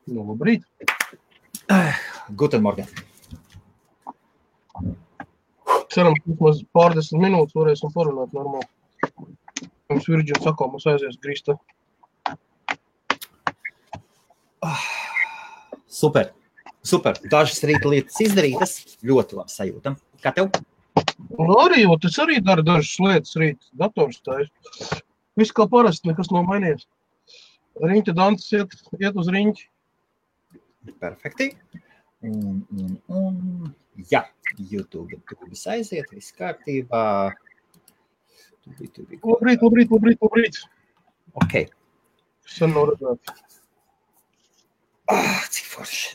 Nu, labrīt. Guten Morgen. Ceram, ka vismaz pārdesmit minūtes varēsim parunāt normāli. Mums Virģins saka, mums aizies grīsta. Super. Dažas rīta lietas izdarītas, ļoti labi sajūtam. Kā tev? Nu, arī, es arī daru dažas lietas rīt, dators tājas. Viss kā parasti, nekas nav mainījies. Riņķa dances iet uz riņķi. Perfekti. Un jā, YouTube aiziet, viss kārtībā. Labrīt. Ok. Sen nav redzēt. Cik forši.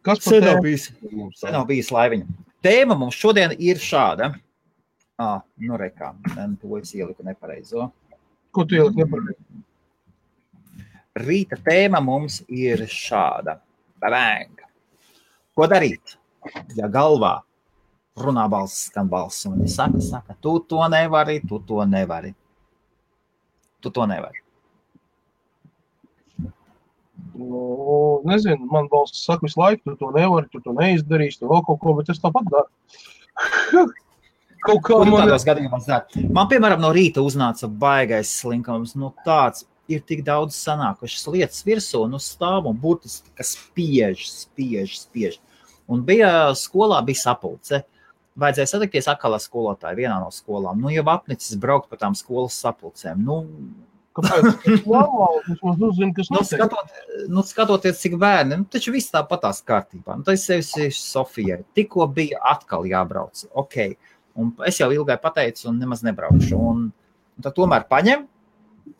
Kas par tēmu? Sen nav bijis laiviņa. Tēma mums šodien ir šāda. Nu rekā, to es ieliku nepareizo. Ko tu ieliku nepareizo? Rīta tēma mums ir šāda. Bang! Ko darīt, ja galvā runā balss, skan balss, un saka, tu to nevari. Nu, nezinu, man balsts saka visu laiku, tu to nevari, tu to neizdarīsi, tu vēl kaut ko, bet es tāpat daru. Kaut kā tādos gadījumos dara. Man, piemēram, no rīta uznāca baigais slinkums, tāds ir tik daudz sanākušas lietas virsū, stāv un burtiski, kas spiež. Un skolā bija sapulce. Vajadzēja satikties atkal ar skolotāju vienā no skolām. Jau apnicis braukt pa tām skolas sapulcēm. Kāpēc? Mums uzzina, kas notiek. Skatoties, cik bērni, taču viss tāpatās kārtībā. Tad es sevi Sofijai. Tikko bija atkal jābrauc. Ok. Un es jau ilgai pateicu un nemaz nebraukšu. Un tad tomēr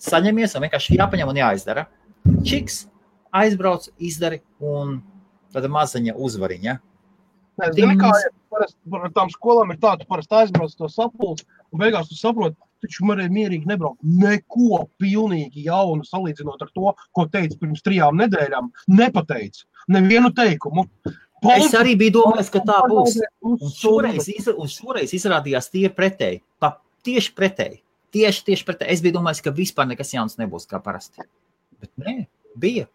saņemies un vienkārši jāpaņem un jāizdara. Čiks, aizbrauc, izdari un tāda mazaņa uzvariņa. Zini, kā par tām skolām ir tā, tu parasti aizbrauc to sapulci un beigās tu saproti, taču varēja mierīgi nebraukt. Neko pilnīgi jaunu salīdzinot ar to, ko teica pirms 3 nedēļām, nepateica. Nevienu teikumu. Es arī biju domājis, ka tā būs. Un šoreiz izrādījās tie pretēji. Tieši pretēji. Tieši pretēji. Es biju domājis, ka vispār nekas jauns nebūs kā parasti. Bet nē, bija.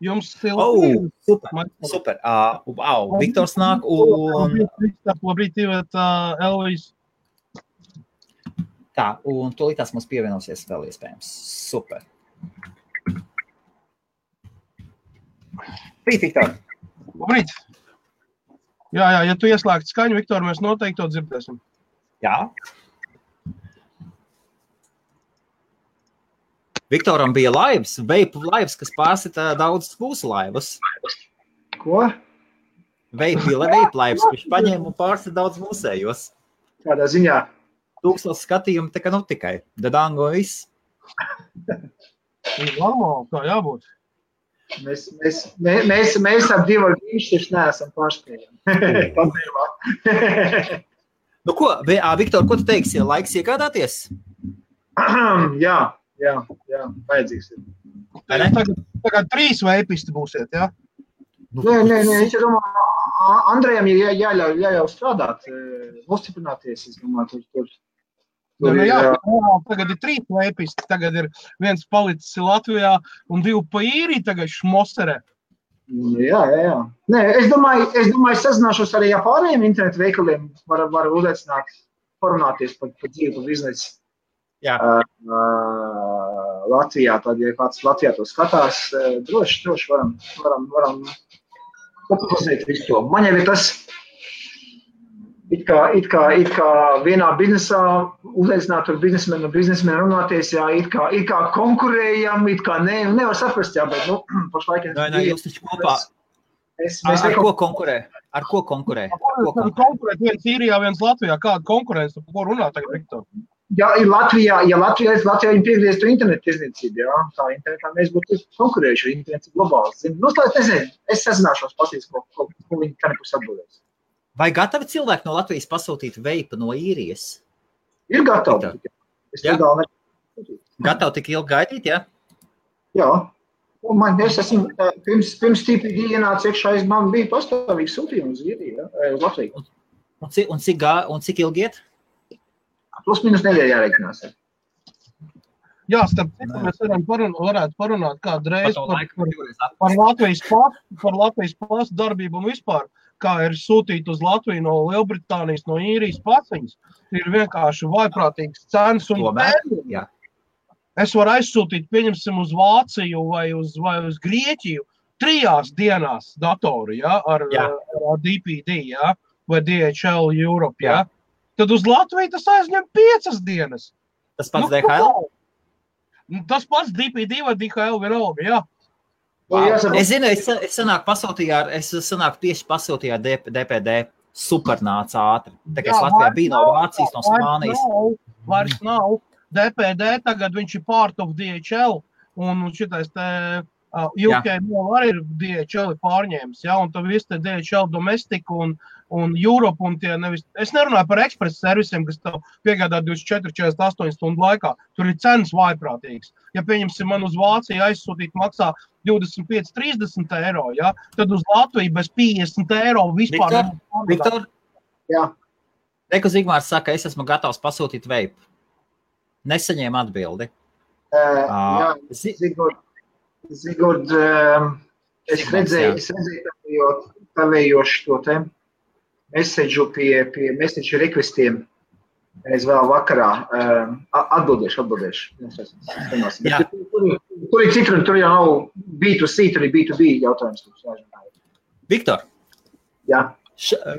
Jums super. Viktors nāk un... Labrīt, Elvis. Tā, un tūlītās mums pievienosies vēl iespējams. Super. Labrīt, Viktor. Labrīt. Jā, ja tu ieslēgti skaņu, Viktor, mēs noteikti to dzirdēsim. Jā. Viktoram bija laivas, veipu laivas, kas pārsita daudz skūsu laivas. Ko? Veipu laivas, kurš paņēma un pārsita daudz mūsējos. Kādā ziņā? 1000 skatījumi tā kā tikai. Dadango viss. Normāli, tā jābūt. Mēs ap 2 ar Grīšķis neesam pārspējami. Ko, Viktor, ko tu teiksi? Laiks iegādāties? Jā, vajadzīgs ir. Tagad 3 veipisti būsiet, jā? Nē, es domāju, Andrejam ir jāļauj strādāt, nostiprināties, es domāju, tur. Tagad ir 3 veipisti, tagad ir 1 palicis Latvijā un 2 pa īriju tagad šmoserē. Jā. Nē, es domāju, sazināšos arī ar pārējiem internetu veikaliem, var uzaicināt, parunāties par dzīvi, par biznesu. Jā. Latvijā, tad, ja kāds Latvijā to skatās, droši varam popularizēt visu to. Man jau ir tas, it kā vienā biznesā uzaicināt ar biznesmenu runāties, jā, it kā konkurējam, it kā nevar saprast, jā, bet, pašlaik... Nē, jūs taču kopā... Ar ko konkurē? Konkurēt viens Īrijā, viens Latvijā. Kāda konkurence? Par ko runā tagad, Viktor? Ja Latvijā viņi piegrieztu internetu tirdzniecību, jā, tā internetā mēs būtu konkurējuši, internets ir globāls. Es sazināšos patīs, ko viņi tā nebūs atbildēs. Vai gatavi cilvēki no Latvijas pasūtīt veipu no Īrijas? Ir gatavi. Gatavi tik ilgi gaidīt, jā? Jā. Es esmu, pirms TPD ienāca iekšā, man bija pastāvīgi sūtījumi uz Īriju, uz Latviju. Un cik ilgi iet? Plus minus nedēļa jāreikinās. Jā, starp citu, mēs varētu parunāt kādreiz par Latvijas pasu darbību un vispār, kā ir sūtīt uz Latviju no Lielbritānijas, no Īrijas paciņas. Ir vienkārši vaiprātīgas cenas un pēdējumi. Es varu aizsūtīt, pieņemsim, uz Vāciju vai uz Grieķiju 3 dienās datoru, ar DPD, vai DHL Europe, Tad uz Latviju tas aizņem 5 dienas. Tas pats DHL? Tas pats DPD vai DHL vienalga, jā. Es zinu, es sanāk tieši pasūtīju ar DPD. Super nāca ātri. Tā kā es Latvijā biju no Vācijas, no Spānijas. Vairs nav. DPD tagad viņš ir part of DHL. Un šitais te UK arī ir DHL pārņēmis, un tad viss te DHL Domestic un Europe un tie nevis. Es nerunāju par ekspresa servisiem, kas tev piegādā 24-48 stundu laikā. Tur ir cenas vaiprātīgas. Ja pieņemsim man uz Vāciju aizsūtīt maksā 25-30 eiro, tad uz Latviju bez 50 eiro vispār. Viktor? Jā. Reku Zigmārs saka, es esmu gatavs pasūtīt veipu. Nesaņēmu atbildi. Zigurd, es redzēju tavējoši to te message pie message requestiem. Es vēl vakarā atbildēšu. Tur ir citur, tur jau nav B2C, tur ir B2B jautājums. Viktor,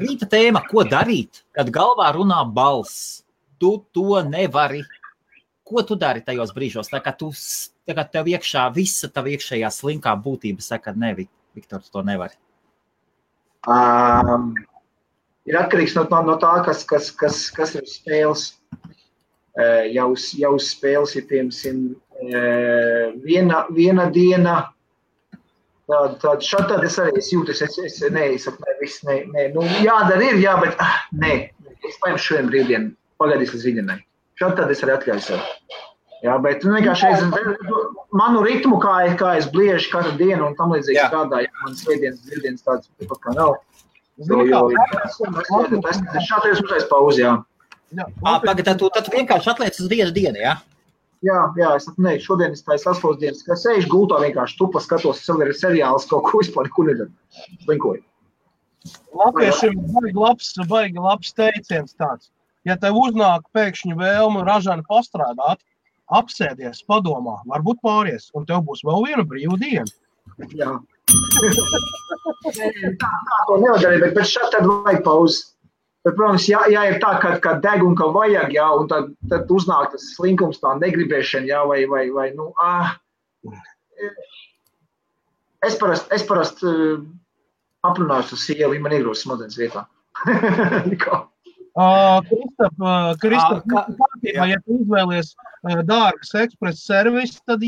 rīta tēma, ko darīt, kad galvā runā balss? Tu to nevari. Ko tu dari tajos brīžos? Tā kā tev iekšā visa tava iekšējā slinkā būtība saka, ne, Viktor, tu to nevari. Ir atkarīgs no tā, kas ir spēles. Jau spēles ir, piemēram, viena diena. Šādi es arī jūtu, jādara ir, bet nē, es paņemšu šodien brīvdienu, pagaidīs līdz rītdienai. Šādi tad es arī atļauju sev. Bet vienkārši manu ritmu, kā es bliežu katru dienu un tam līdzīgi strādāju, man svētdienas tāds kā nav. Šādi es uzreiz pauzi, Tad tu vienkārši atliec uz vienu dienu, Jā, es šodien es tāju saspaules dienas, ka sēžu gultā vienkārši tupa skatos, ir seriāls kaut ko vispār, kur nedara. Slinkoju. Latviešiem baigi labs teiciens tāds. Ja tev uznāk pēkšņi vēlme ražani pastrādāt, apsēdies, padomā, varbūt pāries, un tev būs vēl viena brīva diena. Jā. Tā to nevar darīt, bet šādi tad vajag pauzi. Bet, protams, ja ir tā, ka deg un ka vajag, un tad uznāk tas slinkums, tā negribēšana, vai Es parasti aprunāšu ar sievu, ja man iegrūst smadzenes vietā. Kristap, ja tu izvēlies dārgas ekspresa servisu, tad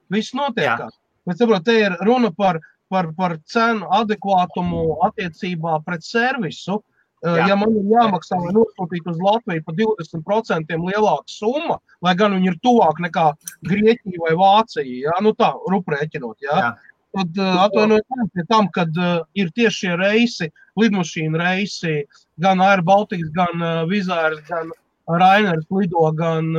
viss notiekās. Bet saprot, te ir runa par cenu adekvātumu attiecībā pret servisu. Ja man ir jāmaksā, lai nosūtīt uz Latviju pa 20% lielāka summa, lai gan viņi ir tuvāk nekā Grieķija vai Vācija, tā, ruprēķinot, tad atvainojiet pie tam, kad ir tieši šie reisi, lidmašīna reisi, gan Air Baltics, gan Wizz Air, gan Rainers lido, gan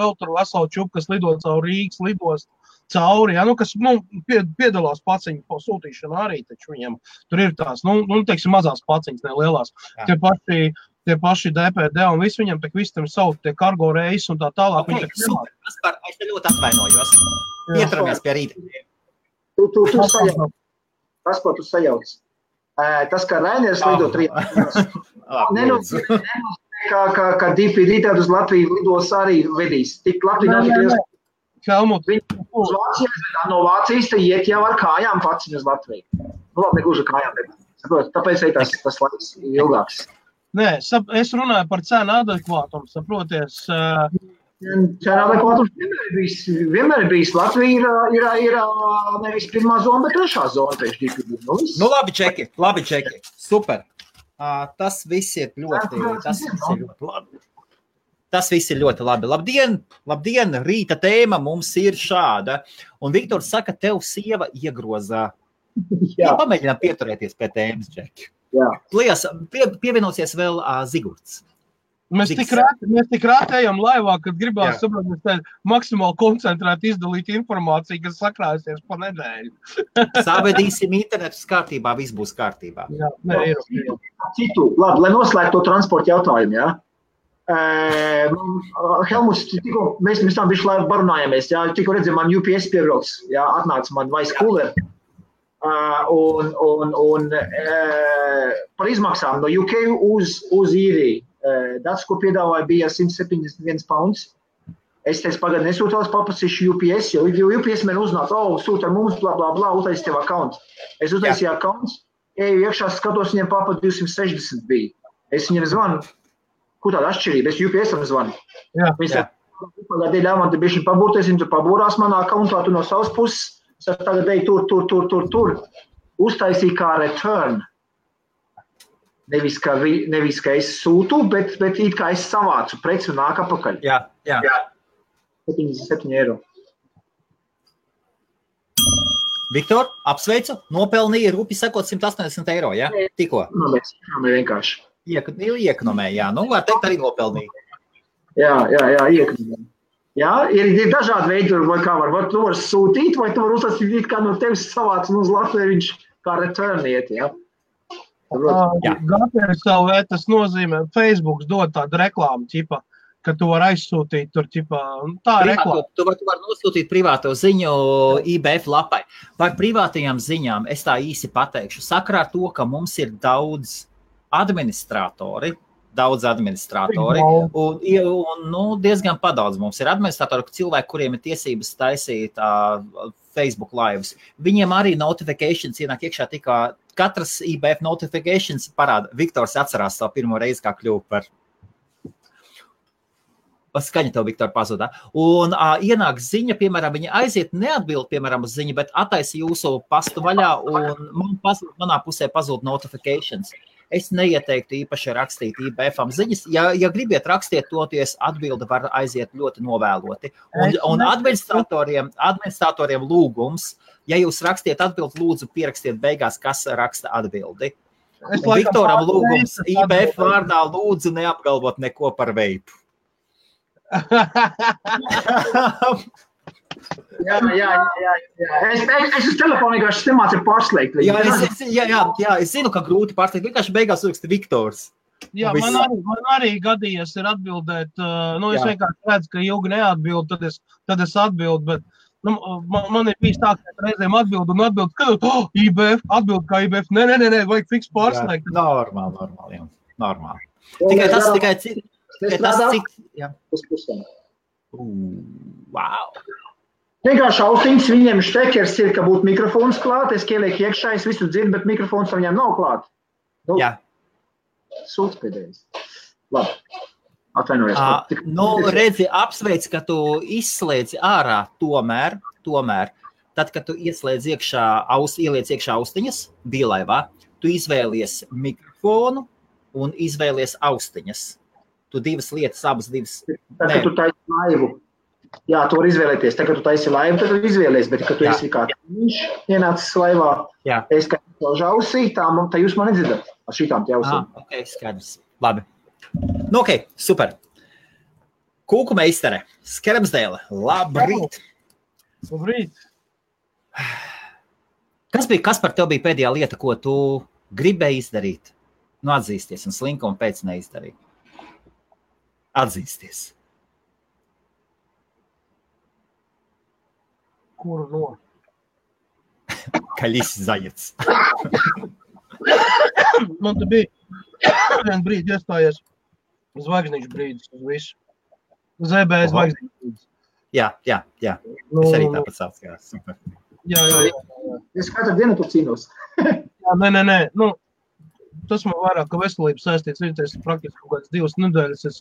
vēl tur veselu čupu, kas lido caur Rīgas lidos cauri, kas piedalās paciņu sūtīšanā arī, taču viņiem tur ir tās, teiksim, mazās paciņas, ne lielās. Tie paši DPD un visi viņam tak visi tam savu tie kargo reisi un tā tālāk. Super, es te ļoti atvainojos. Ieturamies pie rīta. Tu sajauc. Tas, ko tu sajauc. Tas, kā Rainers lido 3 dienas, kā DPD tad uz Latviju lidos arī vedīs. Tik Latviju nav tik liels. Helmut. Uz Vācijas, no Vācijas te iet jau ar kājām paciņu uz Latviju. Labi, negluži ar kājām, bet tāpēc arī tas laiks ilgāks. Nē, es runāju par cenu adekvātumu, saproties. Cenu adekvātums vienmēr ir bijis. Latvija ir nevis pirmā zona, bet trešā zona. Labi čeki. Super. Tas viss ir ļoti labi. Tas viss ir ļoti labi. Labdien, rīta tēma mums ir šāda. Un Viktors saka, tev sieva iegrozā. Jā. Pamēģinām pieturēties pie tēmas, Džeki. Jā. Lielas, pievienosies vēl Zigurds. Mēs tik rāti ejam laivā, kad gribās saprot, mēs tā maksimāli koncentrēti izdalīt informāciju, kas sakrāsies pa nedēļu. Savedīsim internetus kārtībā, viss būs kārtībā. Jā, ir. Citu, labi, lai noslēgtu to transporta jautājumu, jā. Helmuts, tikko mēs tam bišķi laivu barunājāmies, jā, tikko redzēju, man UPS piebrauks, jā, atnāca man vice cooler. Un par izmaksām no UK uz īriju. Dats, ko piedāvāja, bija 171 pounds. Es teicu, pagad nesūtās paprasīšu UPS, jo UPS man uznāca, sūta mums, bla, bla, bla, uztaisi tev accounts. Es uztaisīju accounts, eju iekšā, skatos, viņiem papa 260 bija. Es viņiem zvanu, ko tāda atšķirība, es UPS-am zvanu. Viņš pagādēļ ļāvām, te bišķi pabūties, viņi tur pabūrās manā accountā, tu no savas puses, es tagad eju tur. Uztaisīju kā return. Nevis, ka es sūtu, bet it kā es savācu preci un nāk apakaļ. Jā. 77 eiro. Viktor, apsveicu, nopelnīja rupi sekot 180 eiro, jā? Tikko? Vienkārši. Iekonomē, jā. Nu, var teikt, arī nopelnīja. Jā, iekonomē. Jā, ir dažādi veidi, vai kā var. Tu var sūtīt, vai tu var uzsāstīt, kā no tevis savāc un uz Latviju viņš kā return iet, jā? GPSLV tas nozīmē, Facebooks dod tādu reklāmu, ķipa, ka tu var aizsūtīt tur, ķipa, tā reklāma. Tu var nosūtīt privāto ziņu IBF lapai. Par privātajām ziņām es tā īsi pateikšu. Sakarā ar to, ka mums ir daudz administratori, un diezgan padaudz mums ir administratori, cilvēki, kuriem ir tiesības taisīt Facebook lives. Viņiem arī notifications ienāk iekšā tikā, katras IBF notifications parāda. Viktors atcerās savu pirmo reizi, kā kļuva par skaņa tev, Viktor, pazudā. Un ienāk ziņa, piemēram, viņa aiziet neatbild, piemēram, uz ziņu, bet attaisa jūsu pastu vaļā un manā pusē pazūd notifications. Es neieteiktu īpaši rakstīt IBF-am ziņas. Ja gribiet rakstiet toties, atbilde var aiziet ļoti novēloti. Un administratoriem lūgums, ja jūs rakstiet atbildi, lūdzu pierakstiet beigās, kas raksta atbildi. Viktoram lūgums IBF vārdā lūdzu neapgalvot neko par veipu. Jā. Es uz telefonu vienkārši nemācu pārslēgt. Es zinu, ka grūti pārslēgt. Vienkārši beigās raksta Viktors. Jā, man arī gadījies ir atbildēt. Es vienkārši redzu, ka ilgi neatbild, tad es atbildu, bet man ir bijis tā, ka reizēm atbild, kad IBF, atbild kā IBF. Nē, vajag fiks pārslēgt. Normāli. Tikai cik. Wow. Vienkārši austiņas, viņiem štekers ir, ka būtu mikrofons klāt, es ielieku iekšā, es visu dzirdu, bet mikrofons viņiem nav klāt. Jā. Sūds pēdējais. Labi. Atvainojies. Redzi, apsveic, ka tu izslēdzi ārā tomēr, tad, kad tu ieliec iekšā austiņas, bija laivā, tu izvēlies mikrofonu un izvēlies austiņas. Tu abas divas. Tad, kad tu taisi laivu. Jā, tu var izvēlēties. Tad, kad tu taisi laivu, tad tu izvēlies, bet, kad tu esi kā viņš ienācis laivā, es kā ausī, tā jūs man nedzirdat ar šitām te ausīm. Ok, skaidrs. Labi. Super. Kūku meistere, Skermsdēle, labrīt. Labrīt. Kas par tev bija pēdējā lieta, ko tu gribēji izdarīt? Atzīsties un slinka un pēc neizdarīt. Atzīsties. Kuru no? Kaļis zajets. Man te bija vien brīdi iestājies zvaigznīšu brīdis uz visu. ZB zvaigznīšu brīdis. Jā. Es arī tāpat sauc, jā, super. Jā. Es katru dienu tu cīnos. Jā, nē. Tas man vairāk, ka veselības saistīts, viņas praktiski kaut kāds 2 nedēļas.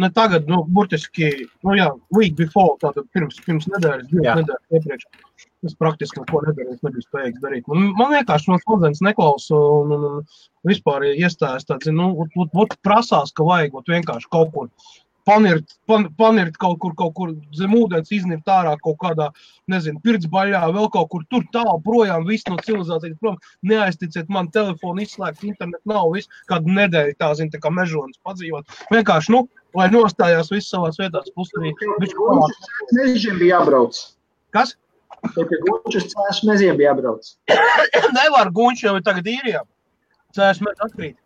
Ne tagad, burtiski, week before, tātad pirms nedēļas, 2 nedēļas iepriekš. Es praktiski neko nedarīju, es nebiju spējīgs darīt. Man vienkārši man smadzenes neklausa un vispār iestājas tāds, prasās, ka vajag vienkārši kaut kur panirt kaut kur zem ūdens, iznirt ārā kaut kādā, nezinu, pirtsbaļā, vēl kaut kur tur tālu projām, viss no civilizācijas prom. Neaizticiet, man telefonu izslēgt, internet nav, viss kādu nedēļu tā, zin, tā kā mežonis padzīvot. Vienkārši, lai nostājās viss savās vietās, plus arī mežiem bija jābrauc. Kas? Pie Gunčus cēšu meziem bija jābrauc. Nevar, Gunču jau ir tagad īrijā. Cēšu mezi atkrīt.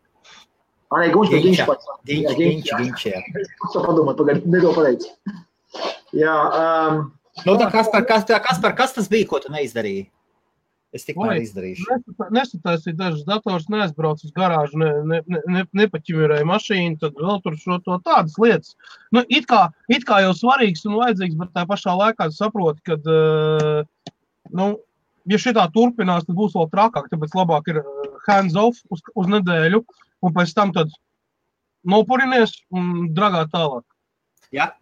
Nē, Gunčs, Ginč, jā. Es padomāt, pagaid, nedo pateicu. Jā. Nu, tā Kaspar, kas tas bija, ko tu neizdarīji? Es tikmēr izdarīšu. Nesataisīju dažas dators, neaizbraucu uz garāžu, nepaķimirēju mašīnu, tad vēl tur šo to tādas lietas. Nu, it kā jau svarīgs un vajadzīgs, bet tā pašā laikā saproti, kad, ja šitā turpinās, tad būs vēl trakāk, tāpēc labāk ir hands off uz nedēļu, un pēc tam tad nopurinies un dragāt tālāk. Jā.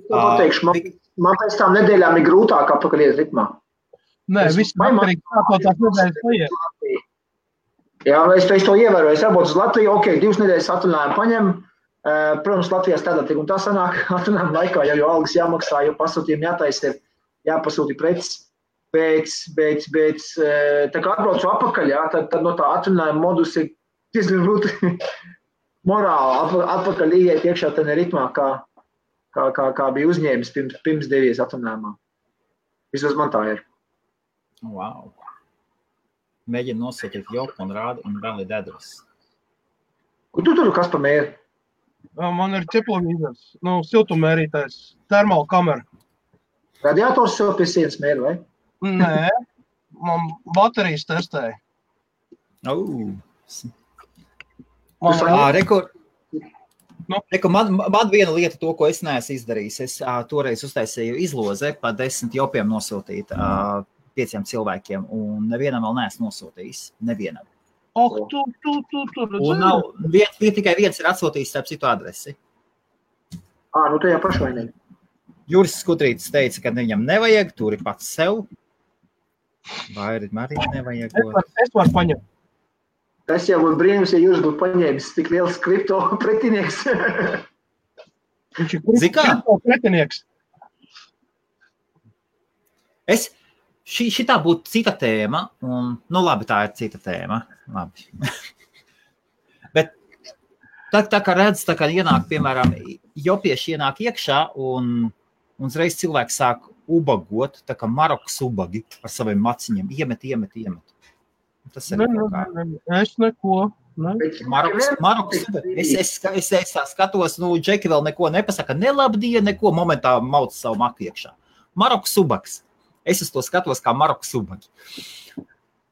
Pateikšu, man pēc tām nedēļām ir grūtāk atpakaļ iet ritmā. Nē, viss atkarīgi kā tās nedēļas paiet. Jā, es to ievēroju. Es jābūt uz Latviju, 2 nedēļas atvaļinājumu paņem. Protams, Latvijā strādāt tik un tā sanāk atvaļinājumu laikā, jau algas jāmaksā, jau pasūtījumi jātaisa ir, jāpasūti preces. Bet tā kā atbraucu apakaļ, jā, tad no tā atvaļinājuma modus ir diezgan grūti morāli atpakaļ ieiet iekšā tādā ritmā, kā bija uzņēmis pirms devies atvaļinājumā. Vismaz man tā ir. Wow. Mēģina nosūtīt joku un rādu un vēl ir dedras. Kur tu tur, kas pa mēri? Man ir ķeplovīzers, siltummērītājs, termāla kamera. Radiators sev pie sienas mēri, vai? Nē, man baterijas testēja. Man viena lieta to, ko es neesmu izdarījis. Es toreiz uztaisīju izloze, pa 10 jopiem nosūtīt 5 cilvēkiem, un nevienam vēl neesmu nosūtījis. Nevienam. Tu. Un nav, tikai viens ir atsūtījis starp citu adresi. Nu tajā pašvainīgi. Juris Skudrītis teica, ka viņam nevajag, turi pats sev. Vai arī nevajag. Es varu paņemt. Tas jau būtu brīnums, ja Juris būtu paņēmis tik liels kripto pretinieks. Viņš ir kripto pretinieks. Šitā būtu cita tēma, un, labi, tā ir cita tēma. Labi. Bet tā kā redz, tā kā ienāk, piemēram, jopieši ienāk iekšā, un uzreiz cilvēks sāk ubagot, tā kā Marokas ubagi ar saviem maciņiem. Iemet. Tas ir Es neko. Marokas ubagi. Es tā skatos, Džeki vēl neko nepasaka, nelabdien, neko momentā mauc savu maku iekšā. Marokas ubags. Es to skatos kā Marokas ubagi.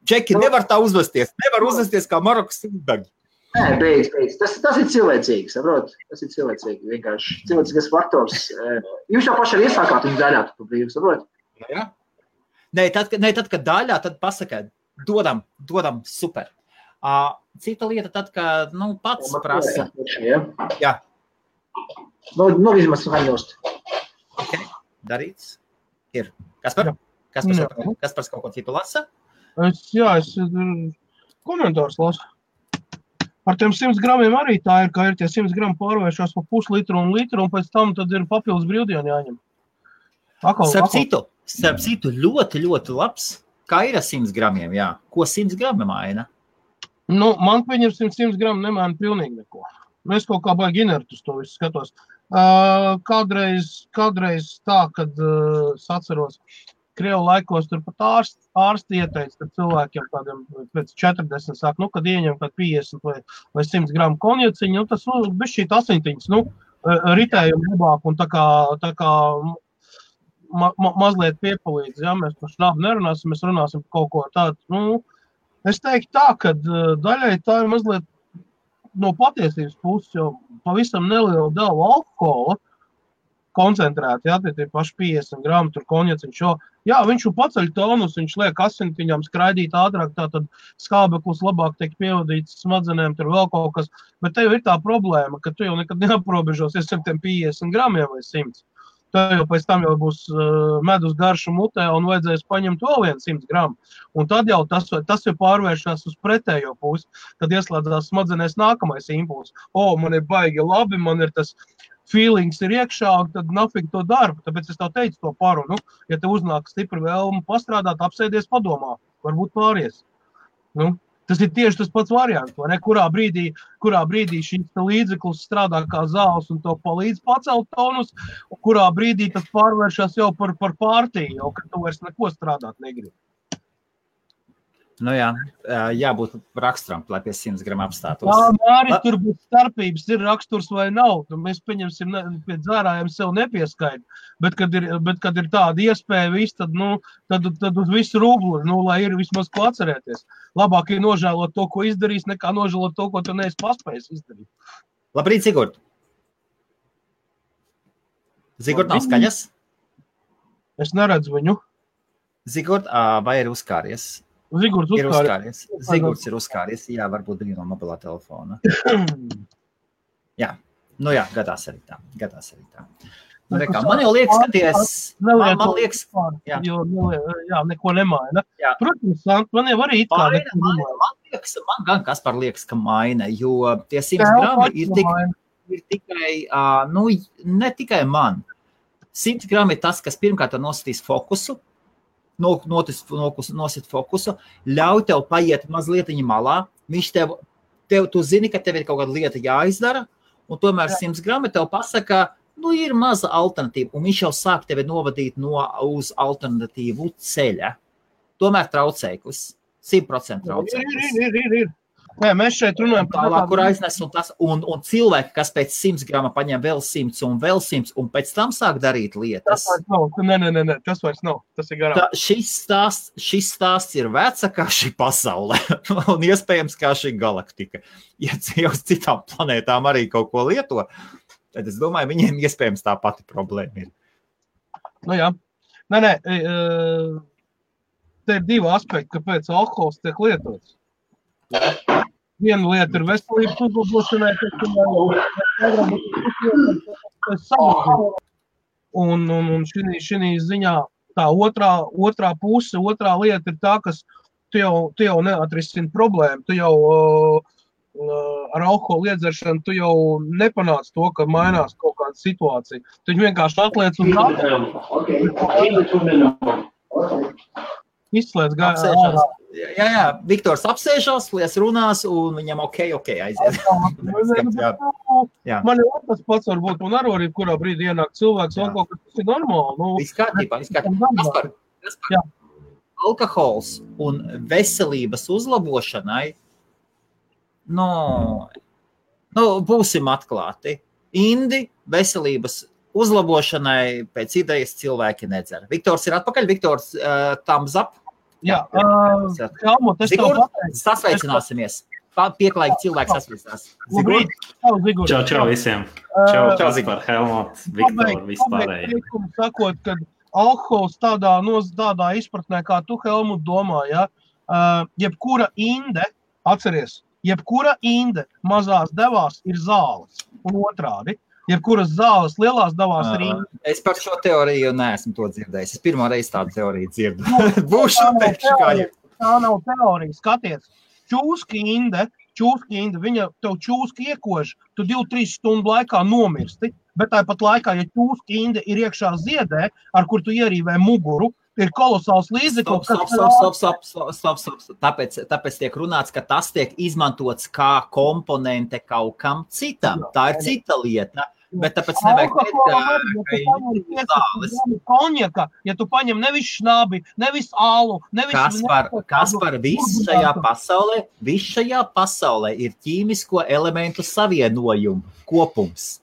Džeki nevar tā uzvesties. Nevar uzvesties kā Marokas ubagi. Nē, beidz. Tas ir cilvēcīgi, saprot? Tas ir cilvēcīgi, vienkārši cilvēcīgas faktors. Jūs jau paši arī iesākāt viņu daļā, tu brīvi, saprot? Jā. Nē, tad, kad daļā, tad pasaka, dodam, super. Cita lieta tad, kad, pats prasa. Jā. Vismaz haņost. Ok, darīts. Ir. Kaspars kaut ko citu lasa? Es komentārs lasu. Ar tiem 100 gramiem arī tā ir, ka ir tie 100 grami pārvēršās pa puslitru un litru, un pēc tam tad ir papildus brīvdienu jāņem. Starp citu, ļoti, ļoti labs. Kā ir ar 100 gramiem, jā? Ko 100 grami maina? Man viņi ir 100 grami nemaina pilnīgi neko. Es kaut kā baigi inertus to visu skatos. Kādreiz tā, kad es atceros, Krievu laikos tur pat ārsti ieteica, kad cilvēkiem tādiem pēc 40 sāk, kad ieņem kad 50 vai 100 gramu konjaciņu, tas bišķīt asiņtiņas, ritējumu labāk un tā kā mazliet piepalīdz, ja mēs par šnabu nerunāsim, mēs runāsim par kaut ko tādu. Es teiktu tā, ka daļai tā ir mazliet no patiesības puses, jo pavisam neliela deva alkohola koncentrēti, jā, tie paši 50 gramu tur konjaciņš, jā, viņš paceļ tonus, viņš liek asintiņām skraidīt ātrāk, tātad skābeklis labāk tiek pievadīts smadzenēm, tur vēl kaut kas, bet te jau ir tā problēma, ka tu jau nekad neaprobežosies ar tiem 50 gramiem vai 100. Tev jau pēc tam jau būs medus garša mutē un vajadzēs paņemt vēl 100 gramu. Un tad jau tas jau pārvēršās uz pretējo pusi, kad ieslēdzās smadzenēs nākamais impulss. Man ir baigi labi, man ir tas feelings ir iekšā, tad nafīgi to darbu. Tāpēc es tev teicu to parunu. Ja tev uznāk stipri vēlme pastrādāt, apsēdies padomā. Varbūt pāries. Tas ir tieši tas pats variants. Kurā brīdī šīs līdzeklis strādā kā zāles un to palīdz pacelt tonus, un kurā brīdī tas pārvēršas jau par pārtīju, jau kad tu vairs neko strādāt negribi. Jābūt raksturam, lai pie 100 gramu apstātos. Māri, tur būs starpības, ir raksturs vai nav. Mēs pieņemsim, pie dzērājiem sev nepieskaid. Bet, kad ir tāda iespēja viss, tad uz visu rublu, lai ir vismaz ko atcerēties. Labāk ir nožēlot to, ko izdarīs, nekā nožēlot to, ko tu neesi paspējis izdarīt. Labrīt, Zigurd. Zigurd nav skaļas? Es neredzu viņu. Zigurd, vai ir uzkāries? Zigurds ir uzkāries. Jā, varbūt bija no mobilā telefona. Jā, gadās arī tā. Man jau liekas, ka neko nemaina. Protams, man jau arī man gan Kaspar liekas, ka maina, jo tie 100 grami ir tikai, ne tikai man. 100 grami ir tas, kas pirmkārt nositīs fokusu, nosit fokusu, ļauj tev paiet mazliet malā, viņš tu zini, ka tev ir kaut kāda lieta jāizdara, un tomēr 100 grami tev pasaka, ir maza alternatīva, un viņš jau sāk tevi novadīt uz alternatīvu ceļa. Tomēr traucēklis, 100% traucēklis. Ir. Nē, mēs šeit runājam tālāk, kur aiznes un cilvēki, kas pēc 100 grama paņem vēl 100 un vēl 100 un pēc tam sāk darīt lietas. Tas vairs nav. Nē, tas vairs nav. Tas ir garām. Šis stāsts ir veca kā šī pasaule un iespējams kā šī galaktika. Ja uz citām planētām arī kaut ko lieto, tad es domāju, viņiem iespējams tā pati problēma ir. Jā. Nē. Te ir divi aspekti, kāpēc alkohols tiek lietots. Viena lieta ir veselības uzlabošanai, un šī ziņā tā otrā puse, otrā lieta ir tā, kas tu jau neatrisini problēmu, tu jau ar alkoholu iedzeršanu tu jau nepanāc to, ka mainās kaut kāda situācija. Tu vienkārši atliec uz izslēdz apsēžās. Jā, Viktors apsēžās, lies runās, un viņam ok, aiziet. Man jau tas pats var būt, un arī kurā brīdī ienāk cilvēks, vēl kaut kas, tas ir normāli. Viss kārtībā. Kaspar, alkohols un veselības uzlabošanai, būsim atklāti. Indi veselības uzlabošanai pēc idejas cilvēki nedzer. Viktors ir atpakaļ, Viktors thumbs up. Jā, Zigurd, sasveicināsimies. Pieklājīgi cilvēki sasveicinās. Zigurd. Čau visiem. Čau, Kaspar, Helmut, Viktor, vispārēji. Sakot, kad alkohols tādā izpratnē, kā tu, Helmut, domā, jebkura inde, atceries, jebkura inde mazās devās ir zāles un otrādi. Jebkuras zāles lielās devās ir inde. Es par šo teoriju neesmu to dzirdējis. Es pirmo reizi tādu teoriju dzirdu. Būšu teikšu kā jau. Tā nav teorija, skaties. Čūska inde, viņa tev čūska iekož, tu 2-3 stundu laikā nomirsti, bet tāpat laikā, ja čūska inde ir iekšā ziedē, ar kur tu ierīvē muguru, ir kolosāls līdzeklis. Stop. Tāpēc tiek runāts, ka tas tiek izmantots kā komponente kaut kam citam. Tā ir cita lieta. Bet tāpēc nevajag teikt, ka zāles. Konjaka, ja tu paņem nevis šnabi, nevis ālu, nevis... Kaspar, viss šajā pasaulē ir ķīmisko elementu savienojumu kopums.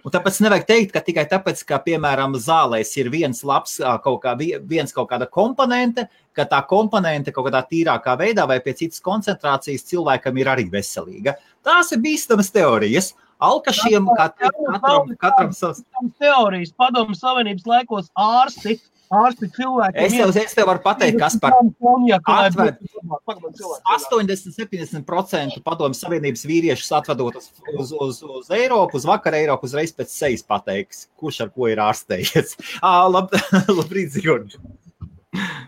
Un tāpēc nevajag teikt, ka tikai tāpēc, ka, piemēram, zālēs ir viens kaut kāda komponente, ka tā komponente kaut kādā tīrākā veidā vai pie citas koncentrācijas cilvēkam ir arī veselīga. Tās ir bīstamas teorijas. Alkašiem katram savs... Teorijas Padomu Savienības laikos ārsti cilvēki... Es tev varu pateikt, Kaspar, 80-70% Padomu Savienības vīriešus atvedot uz Eiropu, uz vakar Eiropu, uzreiz pēc sejas pateiks, kurš ar ko ir ārstējies. Labrīt, Zigurd.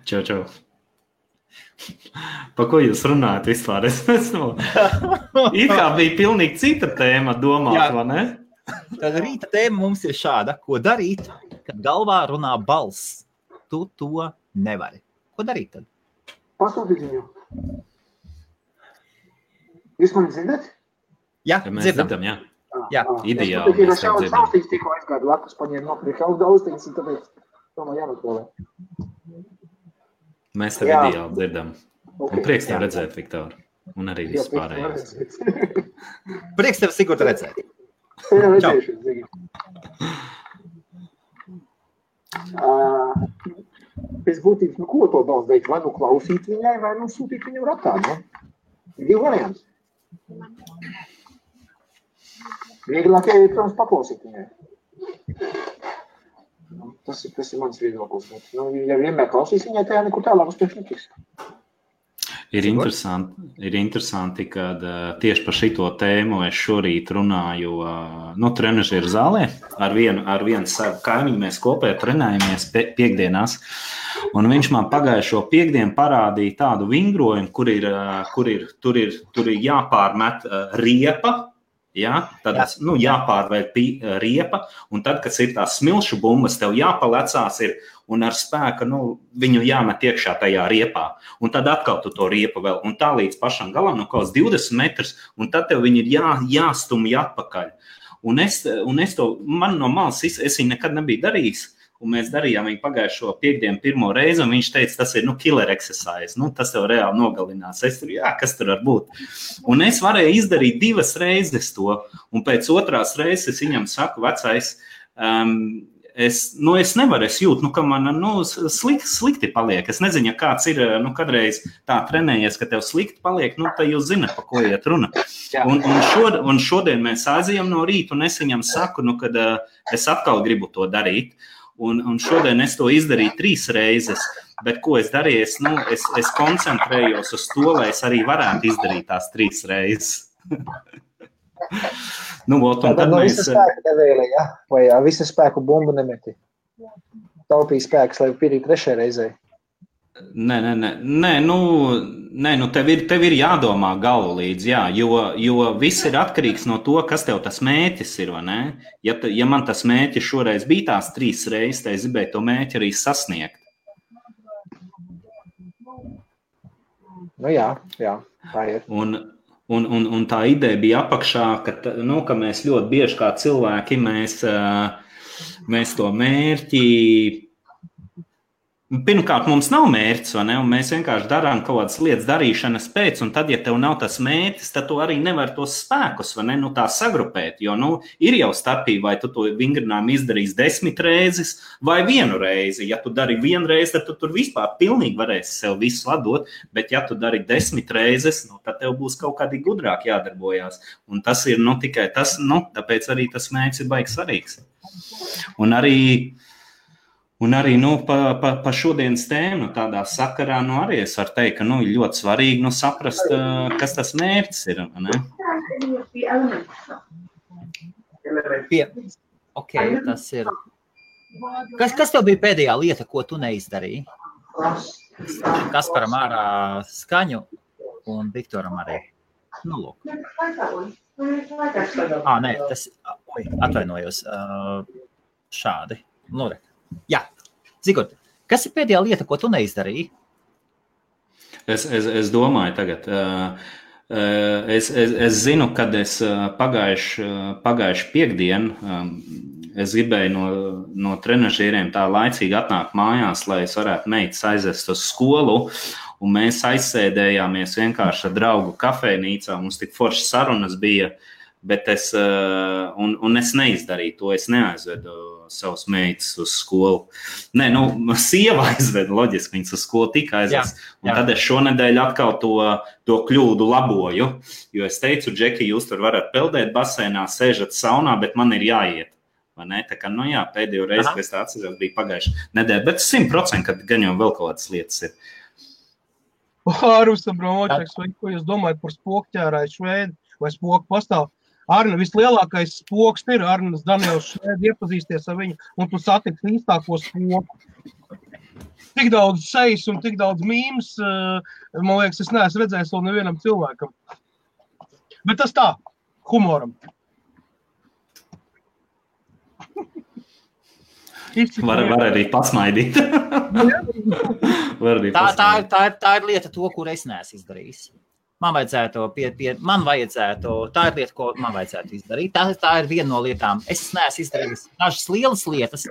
Čau. Pa ko jūs runājat vispār? It kā bija pilnīgi cita tēma domāt, vai ne? Tad rīta tēma mums ir šāda. Ko darīt, kad galvā runā balss? Tu to nevari. Ko darīt tad? Pasūtīt viņu. Jūs mani dzirdat? Jā, Mēs dzirdam, jā. Jā. Ideāli. Es patīk, ka saustīgs tikko aizgādu lakus, paņēmu nopirkt austiņas, un tāpēc tomēr jānotolē. Mēs tev ideāli dzirdam. Un prieks tev redzēt, Viktor. Un arī viss pārējais. Prieks tev, Sigurd, redzēt. Jā, redzējušies, Zigi. Pēc būtības, ko to balss darīt? Vai klausīt viņai, vai sūtīt viņu ratā, ne? Divi varianti. Vieglāk ir, protams, paklausīt viņai. Tas ir mans viedoklis. Ja vienmēr klausīs viņai, tajā nekur tālāk uz priekšu netiks. Ir interesanti, kad tieši par šito tēmu es šorīt runāju trenažieru zālē. Ar vienu savu kaimiņu mēs kopē trenējamies piekdienās. Un viņš man pagājušo piekdienu parādīja tādu vingrojumu, tur ir jāpārmet riepa. Ja? Tad jāpārvēl riepa, un tad, kad ir tās smilšu bumbas, tev jāpalecās ir, un ar spēku viņu jāmet iekšā tajā riepā. Un tad atkal tu to riepu vēl, un tā līdz pašam galam, kaut 20 metrus, un tad tev viņi ir jāstumj atpakaļ. Un es to, man no malas, es viņu nekad nebiju darījis, un mēs darījām viņu pagājušo piekdienu pirmo reizi, un viņš teica, tas ir, killer exercise, tas tev reāli nogalinās. Es tur, kas tur var būt. Un es varēju izdarīt 2 reizes to, un pēc 2. reizes es viņam saku, vecais, es nevaru, es jūtu, ka man, slikti paliek. Es nezinu, ja kāds ir, kadreiz tā trenējies, ka tev slikti paliek, tad jūs zināt, pa ko iet runa. Un šodien mēs aizējam no rīta, un es viņam saku, kad es atkal gribu to darīt. Un šodien es to izdarīju 3 reizes, bet ko es darīju, es koncentrējos uz to, lai es arī varētu izdarīt tās 3 reizes. Tad visa spēka nevēlē, ja? Vai visa spēku bumbu nemeti? Taupīja spēks, lai pirīt 3. reizē. Nē, tev ir jādomā galvu līdz, jā, jo viss ir atkarīgs no to, kas tev tas mērķis ir, vai ne? Ja man tas mērķis šoreiz bija tās 3 reizes, tad es gribēju to mērķi arī sasniegt. Jā, tā ir. Un tā ideja bija apakšā, ka mēs ļoti bieži kā cilvēki, mēs to mērķi, pirmkārt, mums nav mērķis, vai ne? Un mēs vienkārši darām kaut kādas lietas darīšanas pēc, un tad, ja tev nav tas mērķis, tad tu arī nevar tos spēkus, vai ne? Tā sagrupēt, jo, ir jau starpība, vai tu to vingrinājumu izdarīsi 10 reizes vai 1 reizi. Ja tu dari 1 reizi, tad tu tur vispār pilnīgi varēsi sev visu ladot, bet ja tu dari 10 reizes, tad tev būs kaut kādi gudrāk jādarbojās. Un tas ir, tikai tas, tāpēc arī tas mērķis ir baigi svarīgs. Un arī pa šodienas tēmu tādā sakarā, arī es varu teikt, ka ir ļoti svarīgi saprast, kas tas mērķis ir. Ne? Tas ir. Kas tev bija pēdējā lieta, ko tu neizdarīji? Kasparam ārā skaņu un Viktoram arī. Lūk. Nē, tas, atvainojos, šādi. Jā, Zigurd, kas ir pēdējā lieta, ko tu neizdarīji? Es domāju tagad, es zinu, kad es pagājuši piekdienu, es gribēju no trenažieriem tā laicīgi atnākt mājās, lai es varētu meitas aizvest uz skolu, un mēs aizsēdējāmies vienkārši ar draugu kafejnīcā, mums tik foršas sarunas bija, bet es neizdarīju to, es neaizvedu savus meitas uz skolu. Nē, sieva aizved, loģiski, viņas uz skolu tika aizvest. Un tad es šonedēļ atkal to kļūdu laboju, jo es teicu, Džeki, jūs tur varat peldēt basēnā, sēžat saunā, bet man ir jāiet. Vai ne? Tā kā, pēdējo reizi, kad es tā atceros, bija pagājuši nedēļa, bet 100%, kad gan jau vēl kaut kādas lietas ir. Rusam Bromočeks, vai ko jūs domājat par spokķērāju Šveidu, vai spoku pastāv? Arna, vislielākais spoks ir Arnas Daniels Šveidu, iepazīsties ar viņu, un tu satiksi īstāko spoku. Tik daudz sejas un tik daudz mīmas, man liekas, es neesmu redzējis vēl nevienam cilvēkam. Bet tas tā, humoram. Var arī pasmaidīt. Tā ir lieta to, kur es neesmu izdarījis. Man vajadzētu, tā ir lieta, ko man vajadzētu izdarīt. Tā ir viena no lietām. Es neesmu izdarījis dažas lielas lietas.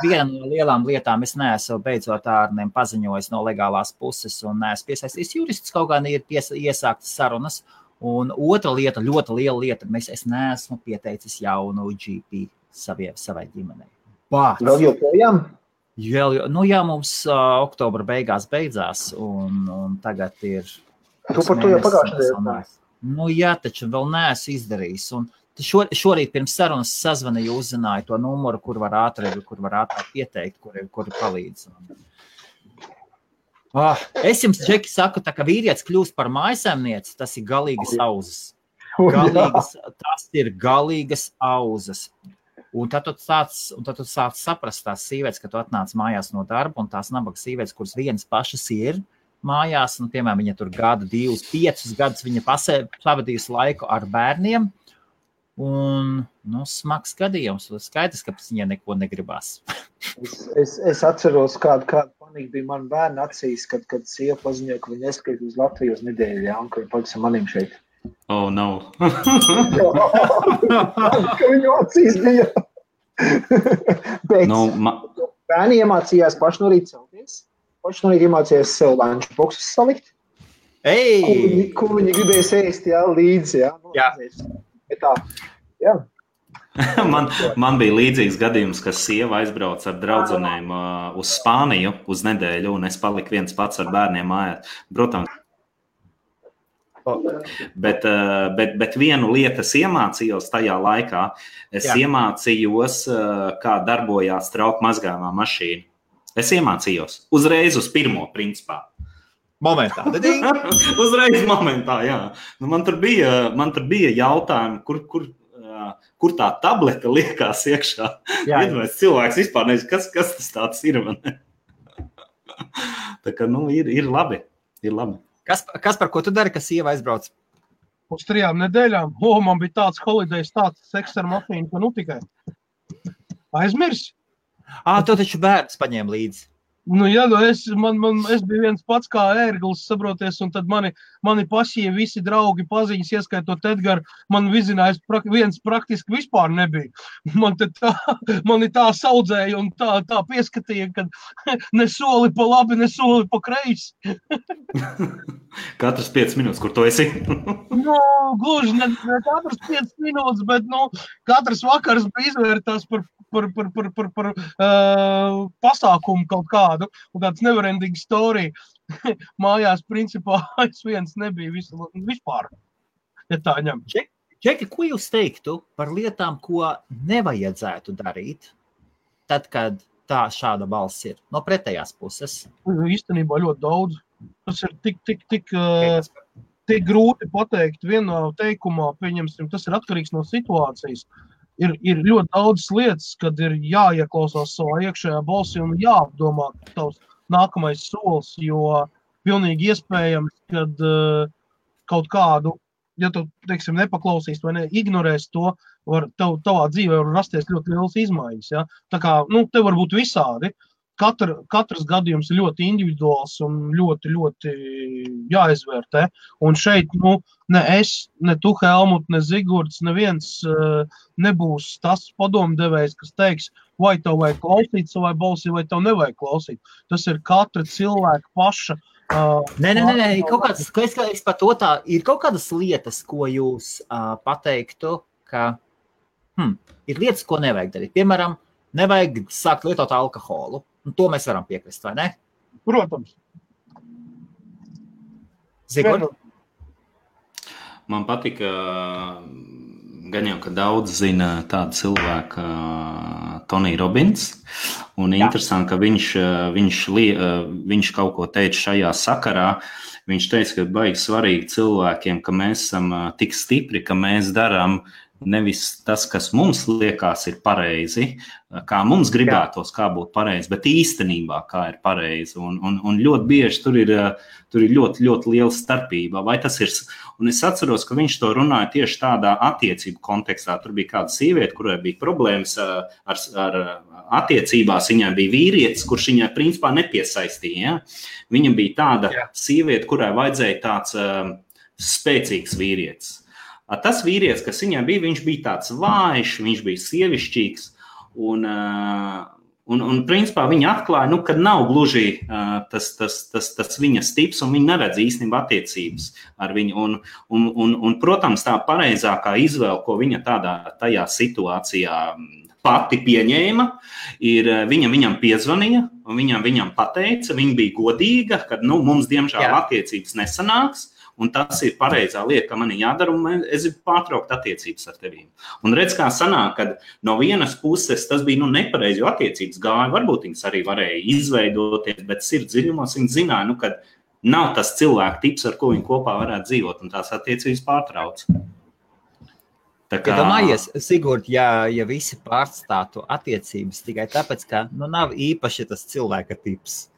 Viena no lielām lietām es neesmu beidzot ārniem paziņojis no legālās puses un neesmu piesaistījis juristus, kaut gan ir iesāktas sarunas. Un otra lieta, ļoti liela lieta, es neesmu pieteicis jaunu GP savai ģimenei. Vēl joprojām? Jā, mums oktobra beidzās un tagad ir... Tu par to jau pagājušajā. Jā, taču vēl neesmu izdarījis. Un šorīt pirms sarunas sazvanīju, uzzināju to numuru, kur var ātrāk pieteikt, kuri palīdz. Es jums, Džeki, saku, tā, ka vīrietis kļūst par mājsaimnieci, tas ir galīgas auzas. Tas ir galīgas auzas. Un tad tu sāc saprast tās sievietes, ka tu atnāc mājās no darba, un tās nabaga sievietes, kuras vienas pašas ir mājās, un, piemēram, viņa tur 1, 2, 5 gadus viņa pavadījusi laiku ar bērniem, un, smags gadījums, skaidrs, ka viņai neko negribās. Es atceros, kāda panika bija man bērni acīs, kad sieva paziņoja, ka viņa neskrīt uz Latviju uz nedēļu, jā, un ka viņa paliks ar manim šeit. Oh, no. Ka viņu acīs bija. Bet bērni iemācījās paši no rīta celties. Paši no rīta iemācījās sev lunch boxus salikt. Ko viņi gribēs ēst, jā, līdzi, jā. Bet tā, jā. Man bija līdzīgs gadījums, ka sieva aizbrauc ar draudzenēm uz Spāniju uz nedēļu, un es paliku viens pats ar bērniem mājās. Protams. Bet vienu lietu es iemācījos tajā laikā. Es iemācījos, kā darbojās trauku mazgājumā mašīna. Es iemācījos uzreiz uz pirmo principā. Momentā. Uzreiz momentā, jā. Man tur bija jautājumi, kur tā tableta liekās iekšā. Iedomājies, cilvēks vispār nezinu, kas tas tāds ir. Tā kā, ir labi. Kas par ko tu dari, ka sieva aizbrauc? Uz 3 nedēļām. Man bija tāds holidays, tāds seks ar mafīnu, ka tikai aizmirsi. Tu taču bērns paņēma līdzi. Es biju viens pats kā ērglis, saproties, un tad mani pašie visi draugi paziņas, ieskaitot Edgaru, man vizinājis viens praktiski vispār nebija. Mani tā saudzēja un tā pieskatīja, ka ne soli pa labi, ne soli pa kreisi. Katras 5 minūtes, kur tu esi? Gluži ne katras 5 minūtes, bet katrs vakars bija izvērtās par pasākumu kaut kādu, un tāds neverending story. Mājās, principā, es viens nebija vispār, ja tā ņem. Džeki, ko jūs teiktu par lietām, ko nevajadzētu darīt, tad, kad šāda balss ir no pretējās puses? Īstenībā ļoti daudz. Tas ir tik grūti pateikt vienā teikumā, pieņemsim, tas ir atkarīgs no situācijas. Ir ļoti daudz lietas, kad ir jāieklausās savā iekšējā balsī un jāapdomā tavs nākamais solis, jo pilnīgi iespējams, kad kaut kādu, ja tu, teiksim, nepaklausīs vai ignorēs to, tavā dzīvē var rasties ļoti lielas izmaiņas. Ja? Tā kā, te var būt visādi. Katrs gadījums ir ļoti individuāls un ļoti, ļoti jāizvērtē. Un šeit, ne es, ne tu, Helmut, ne Zigurds, neviens nebūs tas padomdevējs, kas teiks, vai tev vajag klausīt savai balsī, vai tev nevajag klausīt. Tas ir katra cilvēka paša. Nē, es par to tā, ir kaut kādas lietas, ko jūs pateiktu, ka ir lietas, ko nevajag darīt. Piemēram, nevajag sākt lietot alkoholu. Un to mēs varam piekrist, vai ne? Protams. Zigurd? Man patika, gan jau, ka daudz zina tādu cilvēku Tony Robbins, un interesanti, ka viņš kaut ko teica šajā sakarā. Viņš teica, ka baigi svarīgi cilvēkiem, ka mēs esam tik stipri, ka mēs darām nevis tas, kas mums liekas ir pareizi, kā mums gribētos, kā būtu pareizi, bet īstenībā kā ir pareizi. Un ļoti bieži tur ir ļoti, ļoti liela starpība. Vai tas ir, un es atceros, ka viņš to runāja tieši tādā attiecību kontekstā. Tur bija kāda sieviete, kurai bija problēmas ar attiecībās, viņai bija vīrietis, kurš viņai principā nepiesaistīja. Ja? Viņa bija tāda sieviete, kurai vajadzēja tāds spēcīgs vīrietis. Tas vīrietis, kas viņai bija, viņš bija tāds vājš, viņš bija sievišķīgs, un principā viņa atklāja, ka nav gluži tas viņas tips, un viņa neredz īstenībā attiecības ar viņu. Un, protams, tā pareizākā izvēle, ko viņa tajā situācijā pati pieņēma, ir viņam piezvanīja, un viņam pateica, viņa bija godīga, ka mums diemžēl attiecības nesanāks, un tas ir pareizā lieta, ka man ir jādara, un es gribu pārtraukt attiecības ar tevīm. Un redz, kā sanāk, kad no vienas puses tas bija nepareizi, jo attiecības gāja, varbūt viņas arī varēja izveidoties, bet sirds dziļumos viņi zināja, ka nav tas cilvēku tips, ar ko viņi kopā varētu dzīvot, un tās attiecības pārtrauc. Tā kā... Domājies, Sigurd, ja visi pārstātu attiecības tikai tāpēc, ka nav īpaši tas cilvēka tips.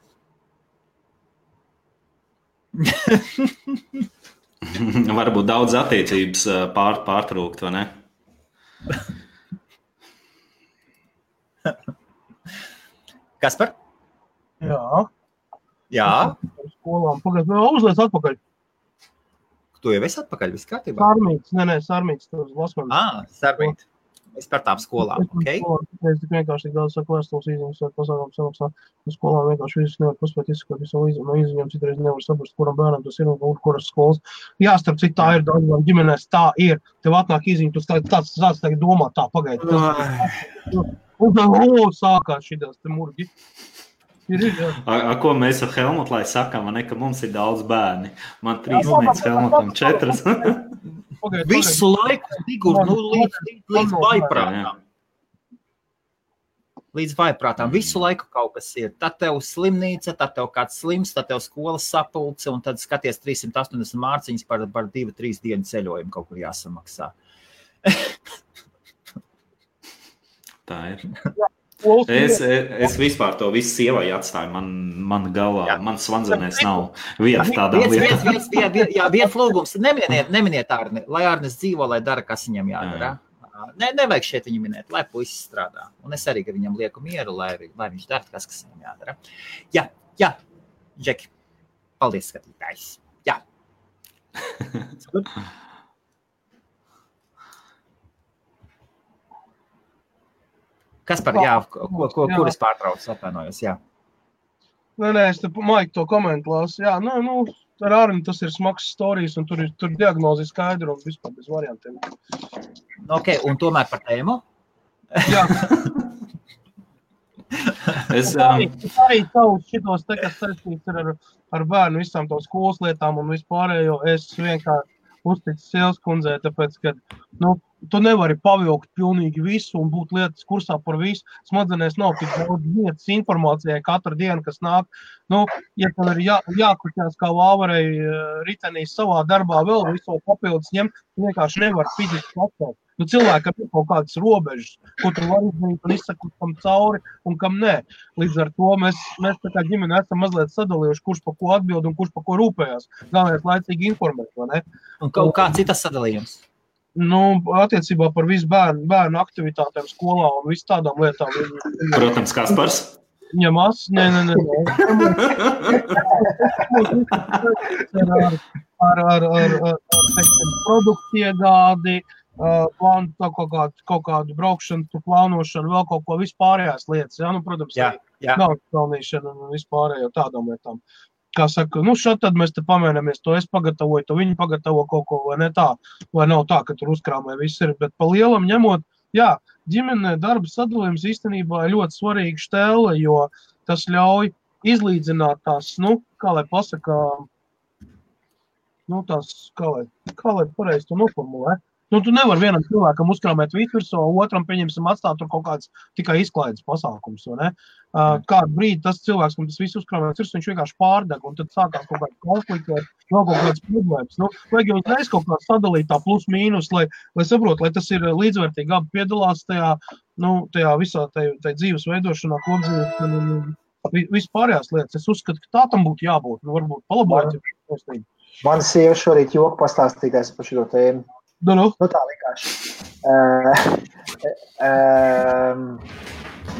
Varbūt daudz attiecības pārtrūkt, vai ne? Kaspar? Jā. Skolām. Uzliec atpakaļ. Tu jau esi atpakaļ, viss kārtībā? Sarmīts. Sarmīt. Es par tām skolām, ok? Es vienkārši tik daudz saku vēstules izņems, pasākums samaksā. Skolām vienkārši visus nevar paspēt izskot visu izņemt, citreiz nevar saprast, kuram bērnam tas ir un kuras skolas. Jā, starp citu, tā ir daudzām ģimenēs, tā ir. Tev atnāk izņemt, tu tāds tagad domā, tā pagaidi. Un sākās šitās te murgi. Ko mēs ar Helmutu, lai sakām, ka mums ir daudz bērni? Man 3 meitas, Helmutam 4. Visu laiku, Sigurd, līdz vaiprātām. Līdz vaiprātām. Visu laiku kaut kas ir. Tad tev slimnīca, tad tev kāds slims, tad tev skolas sapulce, un tad skaties 380 mārciņas par 2-3 dienu ceļojumu kaut kur jāsamaksā. Tā ir. Es vispār to visu sievai atstāju. Man galvā, man svanzenēs nav vieta tādā lietā. Viens lūgums. Neminiet Arni. Lai Arnis dzīvo, lai dara, kas viņam jādara. Nevajag šeit viņu minēt, lai puisis strādā. Un es arī, ka viņam lieku mieru, lai viņš dara, kas viņam jādara. Jā. Džeki. Paldies, skatītājs. Jā. Kaspar, kuras pārtrauc, atvainojos, jā. Nē, es te Maik to komentu lasu. Jā, ar Arni tas ir smags storijas, un tur diagnozi skaidru un vispār bez variantiem. Ok, un tomēr par tēmu? Jā. Es arī tavus šitos te, kas saistīts ar bērnu visām tām skolas lietām un vispārējo, es vienkārši uzticu sievas kundzei, tāpēc, ka, tu nevari pavilkt pilnīgi visu un būt lietas kursā par visu. Smadzenēs nav tik daudz vietas informācijai katru dienu, kas nāk. Ja tev ir jākuķās kā vāvarei ritenī savā darbā vēl visu papildus ņemt, tu vienkārši nevar fiziski atstāt. Cilvēkam ir kaut kādas robežas, ko tu vari izdarīt un izsakot kam cauri un kam nē. Līdz ar to mēs tā kā ģimene esam mazliet sadalījuši, kurš pa ko atbild un kurš pa ko rūpējās. Galvenais laicīgi informēt, vai ne? Un kā citas sadalījums? Attiecībā par visu bērnu aktivitātēm skolā un visu tādām lietām. Protams, Kaspars? Ņemās? Nē. Ar produktu iegādi, kaut kādu braukšanu, plānošanu, vēl kaut ko vispārējās lietas. Protams, nav pelnīšana un vispārējo tādām lietām. Kā saka, šad tad mēs te pamēnamies, to es pagatavoju, to viņi pagatavo kaut ko, vai ne tā, vai nav tā, ka tur uzkrāmē viss ir, bet pa lielam ņemot, ģimenē darba sadalījums īstenībā ir ļoti svarīga štēle, jo tas ļauj izlīdzināt tās, kā lai pasaka, tās, kā lai pareizi to noformulē, Nu, tu nevar vienam cilvēkam uzkrāmēt virsū, otram pieņemsim atstāt tur kaut kāds tikai izklaides pasākums, vai ne? Kādu brīdi tas cilvēks, kam tas viss uzkrāmēts virsū, viņš vienkārši pārdeg, un tad sākās kaut kāds konflikts vai vēl kaut kāds problēmas. Nu, vajag jau uzreiz kaut kā sadalīt tā plus mīnus, lai saprot, lai tas ir līdzvērtīgi, abi piedalās tajā visā tajā dzīves veidošanā, kopdzīves, vispārējās lietas. Es uzskatu, ka tā tam būtu jābūt, varbūt palabot. Mana sieva šorīt joku pastāstītājs par šo tēmu. Nu, tā vienkārši.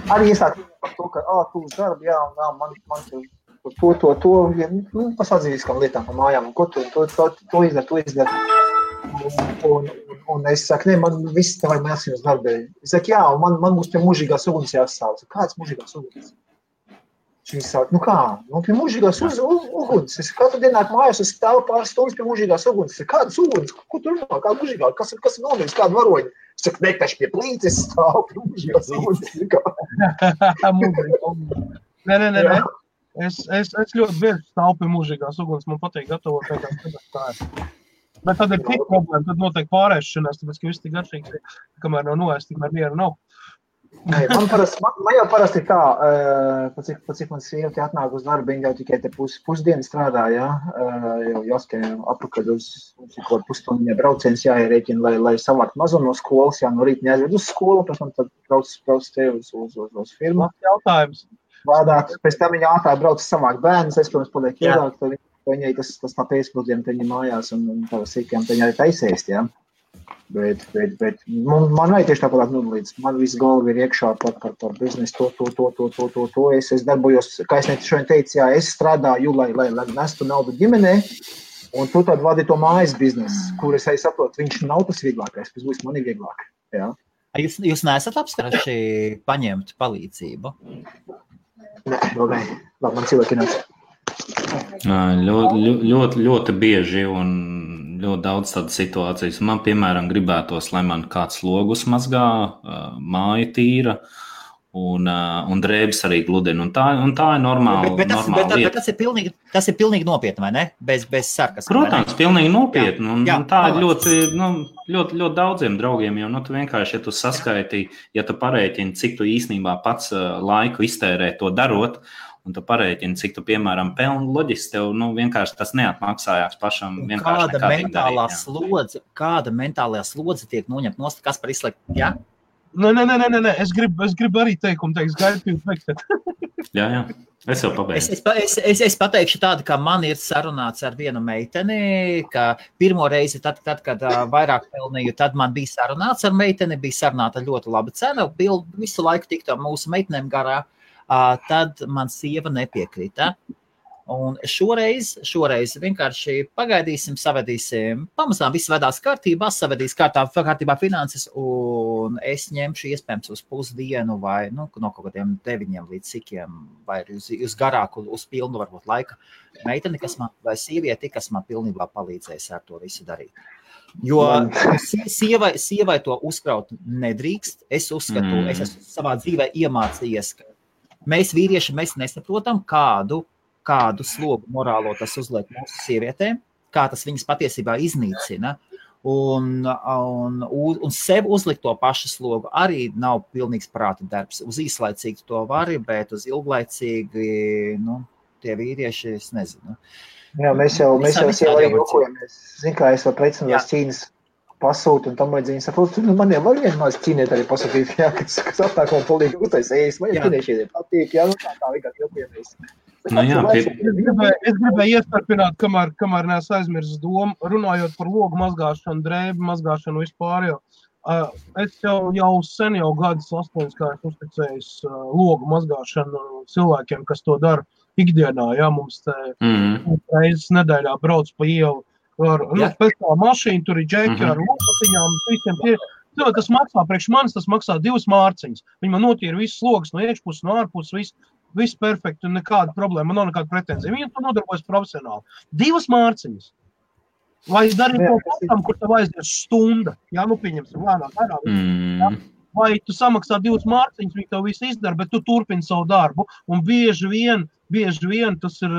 Arī iesāk par to, ka, tu uz darbu, jā, un man to, pasādzīviskām lietām pa mājām, un ko to izdara. Un es saku, man viss te vajag jāsien uz darbu. Es saku, jā, un man būs pie mūžīgās uguns jāsāv. Kāds mūžīgās uguns? Viņi saka, kā? Pie mūžīgās uguns. Es katru dienu nāk mājās, es stāvu pāris stundas pie mūžīgās uguns. Es saku, kādas uguns? Ko tu runā? Kāda mūžīgā? Kas ir nomiris? Kāda varoņa? Es saku, nektaši pie plītes stāvu pie mūžīgās uguns. Nē. Es ļoti bieži stāvu pie mūžīgās uguns. Man patīk gatavot tā. Bet tad ir tik problēma, tad notiek pārēšanās, tāpēc, ka viss tik garšīgs, kamēr nav noēst, tikmēr mieru nav. Man jau parasti ir tā, pa cik man sieva te atnāk uz darbu, viņa jau tikai te pusdienu strādā, jā, jau jāskai apakaļ uz kaut pusstundiņā brauciens jāierēķina, lai savākt mazo no skolas, jā, no rīta neaizved uz skolu, pēc tam tad brauc te uz firmu. Jautājums. Vādāt, pēc tam viņa ātrāk brauc savākt bērnus, es, protams, paliek iedāk, tad viņai tas tā pēcpusdiena te viņa mājās un tā sīkajām te viņa arī taisēst, jā. Bet man vajag tieši tāpat nodalīts. Man viss galva ir iekšā par biznesu, to. Es darbojos, kā es šodien teicu, jā, es strādāju, lai nestu naudu ģimenē, un tu tad vadi to mājas biznesu, kur es arī saprotu, viņš nav tas vieglākais, kas būs man ir vieglāk. Jā. Jūs neesat apsprieši paņemt palīdzību? Nē, vēl nē. Labi, man cilvēki nāc. Ļoti bieži un ļoti daudz tādas situācijas. Man, piemēram, gribētos, lai man kāds logus mazgā, māja tīra un drēbes arī gludina. Un tā ir normāla lieta. Bet tas ir pilnīgi nopietni, vai ne? Bez sarkas. Protams, pilnīgi nopietni. Un tā ir ļoti daudziem draugiem, jo tu vienkārši, ja tu saskaiti, ja tu parēķini, cik tu īstenībā pats laiku iztērē to darot, un tu parēķini, cik tu, piemēram, pelni, loģiski tev, vienkārši tas neatmaksājās pašam vienkārši nekādīgi darīt. Kāda mentālajā slodze tiek noņemt nost, kas par izslēgt, jā? Nē, es gribu arī teikumu teikt, gaidu teikt. Jā, es jau pabeidzu. Es pateikšu tādu, ka man ir sarunāts ar vienu meiteni, ka pirmo reizi, tad kad vairāk pelnīju, tad man bija sarunāts ar meiteni, bija sarunāta ļoti laba cena, visu laiku tikto mūsu meitenēm garā. Tad man sieva nepiekrita. Un šoreiz vienkārši pagaidīsim, savedīsim, pamazām viss vedās kārtībā, savedīs kārtībā finanses, un es ņemšu iespējams uz pusdienu vai no kaut kādiem 9 līdz cikiem, vai uz garāku, uz pilnu varbūt laika meiteni, vai sievieti, kas man pilnībā palīdzēs ar to visu darīt. Jo sievai to uzkraut nedrīkst. Es uzskatu, es esmu savā dzīvē iemācījies, ka mēs vīrieši, mēs nesaprotam, kādu slogu morālo tas uzliek mūsu sievietēm, kā tas viņas patiesībā iznīcina. Un sev uzlikt to pašu slogu arī nav pilnīgs prāta darbs. Uz īslaicīgi to vari, bet uz ilglaicīgi, tie vīrieši, es nezinu. Jā, mēs jau arī jokojamies. Zinu, kā es vēl precināju Ķīnas pasūtu un tam vajadzīgi saprotu, man jau var vienmēr ķīniet arī pasūtīt, jā, kas aptāk man polīgi uztais ēst, man jau ķīniešiediem patīk, jā, tā vienkārši jokojamies. Es gribēju iestarpināt, kamēr neesmu aizmirsis domu, runājot par logu mazgāšanu, drēbu mazgāšanu vispār, es jau sen gadus 8, kā es uzticējis logu mazgāšanu cilvēkiem, kas to dara ikdienā, jā, mums te reizes nedēļā brauc pa ielu, pēc tā mašīna, tur ir džeki ar lopatiņām, visiem tie. Tas maksā, priekš manis tas maksā 2 mārciņas. Viņi man notīra visas slogas no iekšpuses, no ārpuses, viss perfekti un nekāda problēma, man nav nekāda pretenzija. Viņi to nodarbojas profesionāli. 2 mārciņas. Vai darīt to patam, kur tev aizies stunda? Jā, pieņemsim, lēnāk. Vai tu samaksā 2 mārciņas, viņi tev visu izdara, bet tu turpini savu darbu. Un bieži vien tas ir,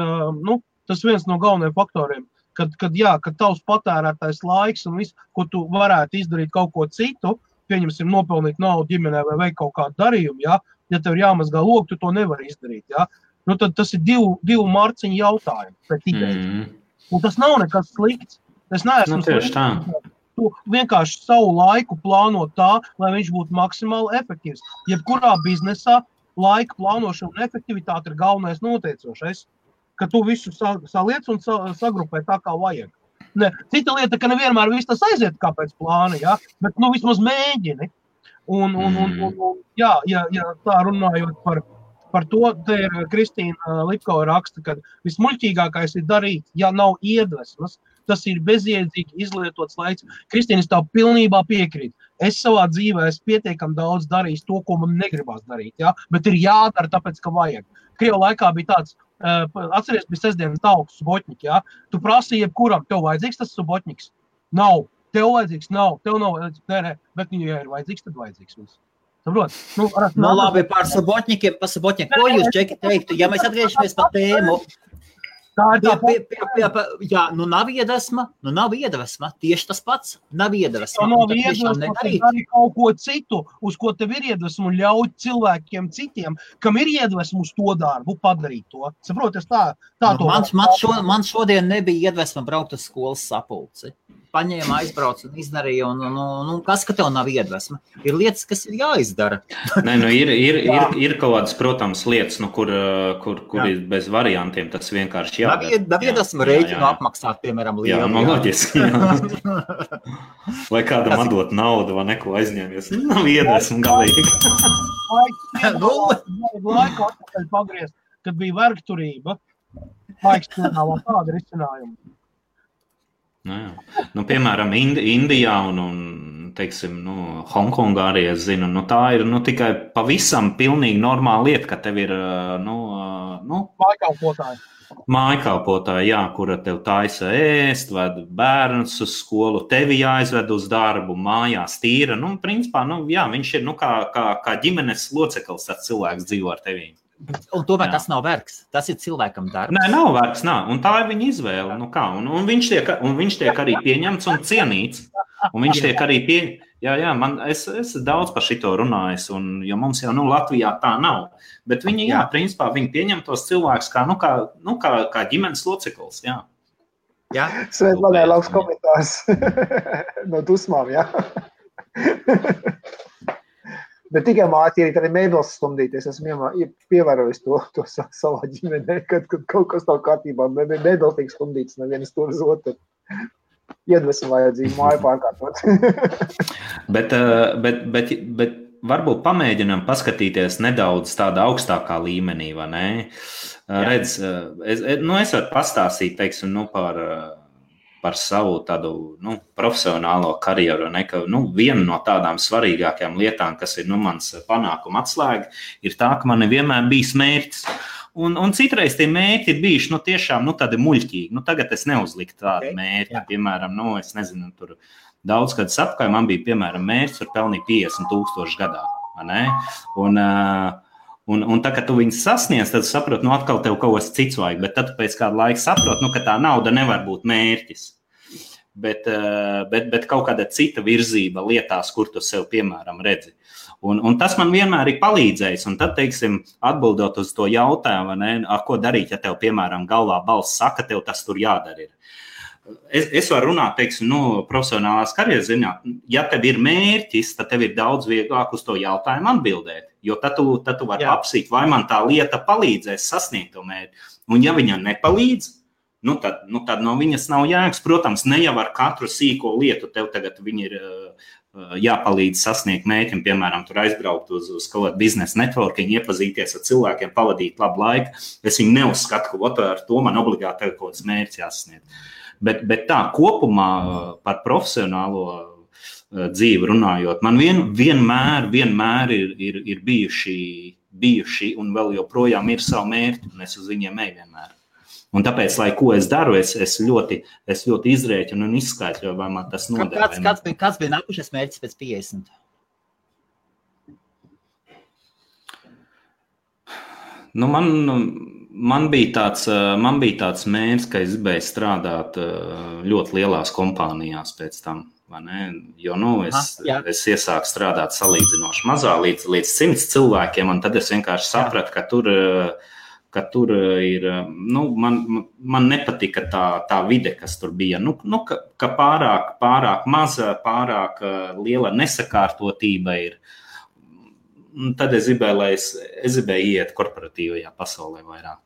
tas viens no galvenajiem faktoriem. kad tavs patērētais laiks un viss, ko tu varētu izdarīt kaut ko citu, pieņemsim nopelnīt naudu ģimenē vai veikt kaut kādu darījumu, ja tev ir jāmazgā logu, tu to nevari izdarīt, ja? Nu, tad tas ir divu marciņu jautājumu pēc idejas. Un tas nav nekas slikts. Es neesmu tieši tā. Tu vienkārši savu laiku plāno tā, lai viņš būtu maksimāli efektīvs. Jebkurā biznesā laika plānošana un efektivitāte ir galvenais noteicošais, ka tu visu saliec un sagrupē tā, kā vajag. Ne, cita lieta, ka nevienmēr viss tas aiziet kā pēc plāna, ja? Bet vismaz mēģini. Un ja tā runājot par to, te ir Kristīna Lipkova raksta, ka vismuļķīgākais ir darīt, ja nav iedvesmas, tas ir bezjēdzīgi izlietots laiks. Kristīna, es tev pilnībā piekrītu. Es savā dzīvē esmu pietiekami daudz darījis to, ko man negribās darīt, ja? Bet ir jādara tāpēc, ka vajag. Krievu laikā bija tāds, atceries, bija sestdienas tauku subotņiki, ja? Tu prasīji jebkuram, tev vajadzīgs tas subotņiks? Nav. Tev vajadzīgs? Nav. Tev nav vajadzīgs? Nē, bet ja ir vajadzīgs, tad vajadzīgs mums. Saprot? Labi, par sabotņikiem, ko jūs, Džeki, teiktu? Ja mēs atgriežamies par tēmu, nav iedvesma, tieši tas pats, nav iedvesma. Nav iedvesma, dari kaut ko citu, uz ko tev ir iedvesma un ļaut cilvēkiem citiem, kam ir iedvesma uz to darbu, padarīt to. Saprot, es tā to man šodien nebija iedvesma braukt uz skolas sapulci. Paņēma, aizbrauc un izdarīja, un kas, ka tev nav iedvesma? Ir lietas, kas ir jāizdara. Nē, ir kaut kādas, protams, lietas, kur ir bez variantiem, tas vienkārši jādara. Nav iedvesma rēķinu apmaksāt, piemēram, lielu. Jā, loģiski. Vai kādam atdot naudu vai neko aizņēmies. Nav iedvesma galīgi. Laiku atpakaļ pagriezt, kad bija vergturība, laiks piedāvā tādu risinājumu. Piemēram, Indijā un teiksim, Hongkongā arī es zinu, tā ir tikai pavisam pilnīgi normāla lieta, ka tev ir mājkalpotāji, kura tev taisa ēst, ved bērnus uz skolu, tevi jāizved uz darbu, mājās tīra. Principā, viņš ir kā ģimenes loceklis, tas cilvēks dzīvo ar tevī. Un tomēr tas nav vergs, tas ir cilvēkam darbs. Nē, nav vergs, un tā ir viņa izvēle. Un viņš tiek arī pieņemts un cienīts. Un viņš tiek arī es daudz par šito runājis, jo mums jau Latvijā tā nav. Bet viņi, principā, viņi pieņem tos cilvēkus kā ģimenes loceklis, Svēt, man ir labs komentārs no dusmām, Bet tikai mācīt arī mēbeles stumdīties. Esmu pievērojis to savā ģimenē, kad kaut kas nav kārtībā. Mēbeles tiek stumdītas nevienas tur uz otru. Iedvesmu vajadzību māju pārkārtot. bet varbūt pamēģinām paskatīties nedaudz tādā augstākā līmenī, vai ne? Redz, es varu pastāstīt, teiksim, par savu tādu profesionālo karjeru. Viena no tādām svarīgākajām lietām, kas ir mans panākuma atslēga, ir tā, ka man vienmēr bijis mērķis. Un citreiz tie mērķi ir bijuši tiešām tādi muļķīgi. Tagad es neuzliku tādu mērķi. Piemēram, es nezinu, tur daudz gadus apkārt man bija, piemēram, mērķis, var pelnīt 50,000 gadā. Vai ne? Un tā, kad tu viņus sasniedz, tad saproti, atkal tev kaut kas cits vajag, bet tad pēc kāda laika saproti, ka tā nauda nevar būt mērķis. Bet kaut kāda cita virzība lietās, kur tu sev, piemēram, redzi. Un tas man vienmēr ir palīdzējis. Un tad, teiksim, atbildot uz to jautājumu, ko darīt, ja tev, piemēram, galvā balss saka, tev tas tur jādara ir. Es varu runāt, teiksim, profesionālās karjeras ziņā. Ja tev ir mērķis, tad tev ir daudz vieglāk uz to jautājumu atbildēt. Jo tad tu vari apsīt, vai man tā lieta palīdzēs sasniegt to mērķi. Un ja viņa nepalīdz, tad no viņas nav jēgas. Protams, ne jau ar katru sīko lietu tev tagad viņi ir jāpalīdz sasniegt mērķim. Piemēram, tur aizbraukt uz kaut kādu biznesa networking, iepazīties ar cilvēkiem, pavadīt labu laiku. Es viņu neuzskatu, ka ar to man obligāti tev kaut kāds mērķis jāsasniegt. Bet tā kopumā par profesionālo dzīvi runājot, man vienmēr ir bijuši un vēl joprojām ir savu mērķi, un es uz viņiem eju vienmēr. Un tāpēc, lai ko es daru, es ļoti izrēķinu un izskaidroju, vai man tas noder. Kāds bija nākušais mērķis pēc 50? Man bija tāds mērķis, ka es gribēju strādāt ļoti lielās kompānijās pēc tam. Jo es iesāku strādāt salīdzinoši mazā līdz 100 cilvēkiem, un tad es vienkārši sapratu, ka tur ir, man nepatika tā vide, kas tur bija, ka pārāk maza, pārāk liela nesakārtotība ir. Tad es gribēju iet korporatīvajā pasaulē vairāk.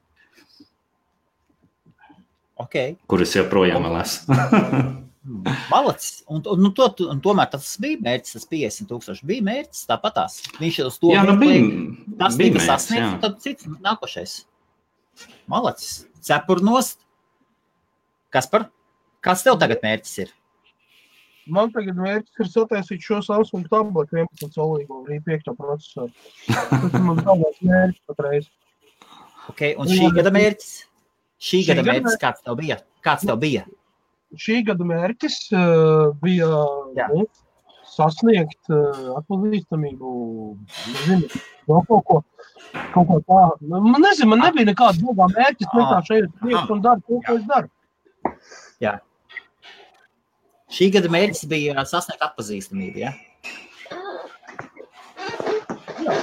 Okay. Kur es joprojām vēl esmu. Malacis. Un tomēr tas bija mērķis, tas 50,000 bija mērķis, tāpatās. Viņš uz to tas tika sasniegts, un tad cits nākošais. Malacis. Cepurnost. Kaspar, kāds tev tagad mērķis ir? Man tagad mērķis ir sataisīt šo Samsung tabletu 11 solīgo, arī 5. procesoru. Tas man tālāk mērķis patreiz. Ok, un šī gada mērķis? Šī gada mērķis kāds tev bija? Šī gada mērķis bija sasniegt atpazīstamību, kaut ko tā. Man nebija nekāda domā mērķis, vienkārši ejot priekš un daru to, ko es daru. Jā. Šī gada mērķis bija sasniegt atpazīstamību, ja? Jā.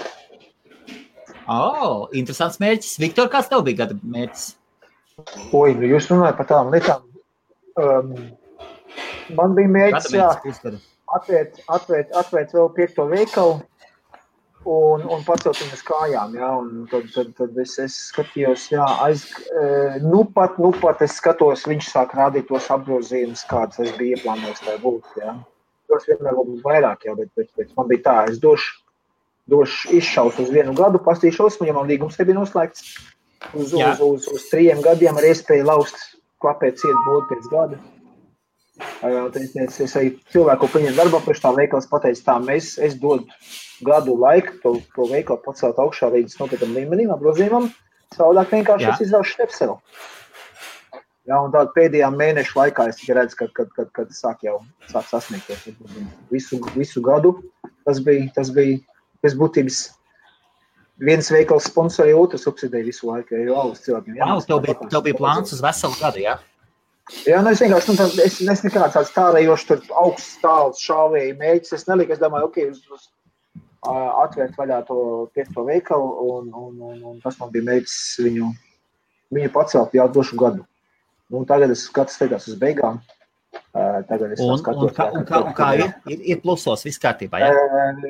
Interesants mērķis. Viktor, kāds tev bija gada mērķis? Jūs runājat par tām lietām. Man bija mērķis, atvērt vēl 5. veikalu un pacelt viņas kājām, un tad es skatījos, pat es skatos, viņš sāk rādīt tos apgrozījumus, kādas es biju ieplānojis tā būt, Tos vienmēr būt vairāk, bet man bija tā, es došu izšaus uz 1 gadu, pastīšos, ja man līgums te bija noslēgts uz 3 gadiem ar iespēju laust klapēt ciet būtu pēc gada. Es arī cilvēku paņem darbā, priekš tā veikals pateicu tā, es dodu gadu laiku to veikalu pacelt augšā līdz nopietnam līmenim, apgrozījumam, savādāk vienkārši es izraušu stepselu. Un tādu pēdējā mēnešu laikā es tikai redzu, kad sāk sasniegties. Visu gadu tas bija būtības viens veikals sponsori, otrs subsidēja visu laiku, jo alus cilvēkiem. Tev bija plāns uz veselu gadu, jā? Jā, es vienkārši, es nekāds tāds tārējoši tur augsts tāls šāvēju mēģis, es neliku, es domāju, atvērt vaļā to 5. veikalu, un tas man bija mēģis viņu pacelt jau došu gadu. Tagad es skatās uz beigām. Tagad es skatos. Un kā ir plusos, viss kārtībā, jā?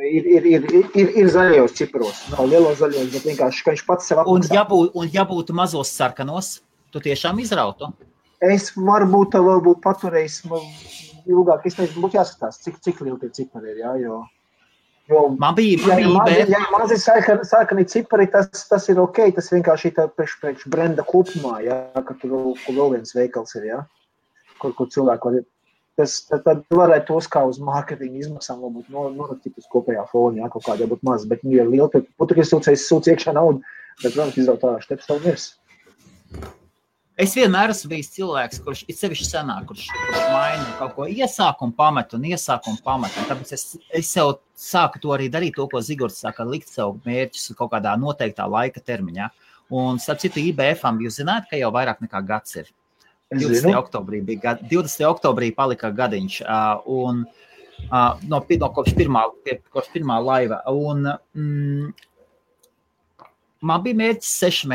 Ir zaļajos ciparos. Nav lielos zaļajos, bet vienkārši, ka viņš pats sev apmaksā. Un ja būtu mazos sarkanos, tu tiešām izrautu? Es varbūt paturējis ilgāk. Es nezinu, būtu jāskatās, cik lieli tie cipari ir, jo man bija ja mazi sarkani cipari, tas ir ok, tas vienkārši ir priekš brenda kopumā, ka tur vēl viens veikals ir, kur cilvēku var, tad varētu tos kā uz mārketinga izmaksām varbūt norakstīt uz kopējā fona, kaut kādā būtu maz, bet ja liela, tad būtu, ka es sūcu iekšā naudu, bet, protams, izraut tā šteps savu mirs. Es vienmēr esmu bijis cilvēks, kurš ir sevišķi senāk, kurš maina kaut ko iesāk un pamet, un tāpēc es sev sāku to arī darīt, to, ko Zigords saka, likt sev mērķus kaut kādā noteiktā laika termiņā. Un, starp citu, IBF-am jūs zināt, ka jau vairāk nekā gads ir. 20. oktobrī palika gadiņš, kopš pirmā laiva. Un man bija mērķis 6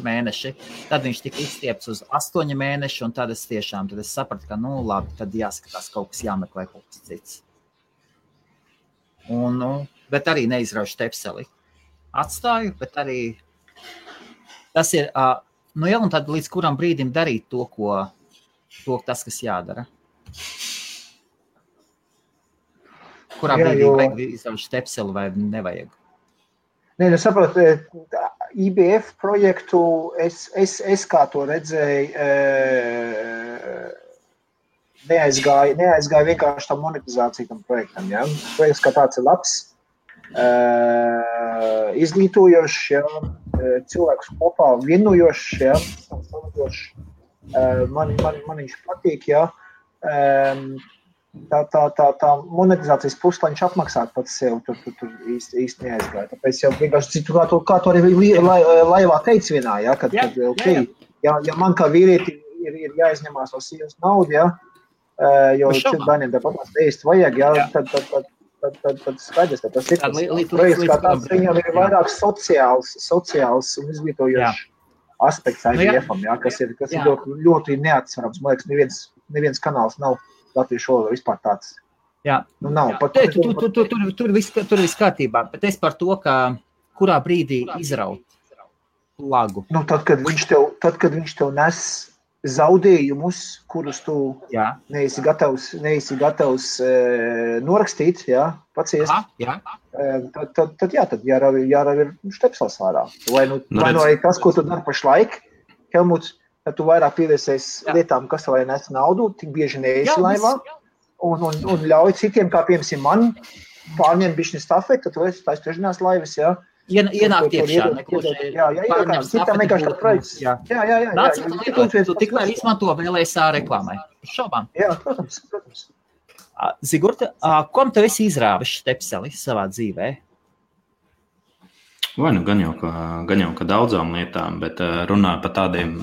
mēneši. Tad viņš tika izstiepts uz 8 mēneši, un tad es sapratu, ka, labi, tad jāskatās kaut kas jāmeklē kaut kas cits. Bet arī neizraušu tepseli. Atstāju, bet arī tas ir, un tad līdz kuram brīdim darīt to tas, kas jādara. Kurā brīdī vajag izraušu tepseli vai nevajag? Nē, saprotu, IBF projektu es kā to redzēju, neaizgāju vienkārši tam monetizāciju tam projektam. Ja? Projekts kā tāds ir labs, izglītojošs, cilvēkus kopā vienojošs, man viņš patīk, tā monetizācijas puse, lai viņš apmaksātu pats sev, tur īsti neaizgāja. Tāpēc jau vienkārši, kā tu arī laivā teici vienā, ja, kad okay, ja man kā vīrieti ir jāizņemās no sievas naudu, ja, jo bērniem tāpat īsti vajag, ja, tad skaidrs, ka tas ir projekts, kā tāds viņam ir vairāk sociāls un izglītojošs aspekts IVF-am, ja, kas ir ļoti neatsverams. Man liekas, neviens kanāls nav latviešu valodā vispār tāds. Jā. Nav. Tur viss kārtībā, bet es par to, ka kurā brīdī izraut lagu. Tad, kad viņš tev nes zaudējumus, kurus tu neesi gatavs norakstīt, paciest, tad jārauj ir štepsels ārā. Vai arī tas, ko tu dari pašlaik, Helmuts, tad tu vairāk pievērsies lietām, kas tev nes naudu, tik bieži neesi laivā, un ļauj citiem, kā piemēram man, pārņemt bišķi stafeti, tad tu esi tās trešdienās laivas, jā. Ienākt iekšā, pārņem stafeti. Tu tikmēr izmanto VLSA reklāmai. Šaubām. Jā, protams. Zigurta, kom tev esi izrāvis štepseli savā dzīvē? Vai gan jau ka daudzām lietām, bet runāju par tādiem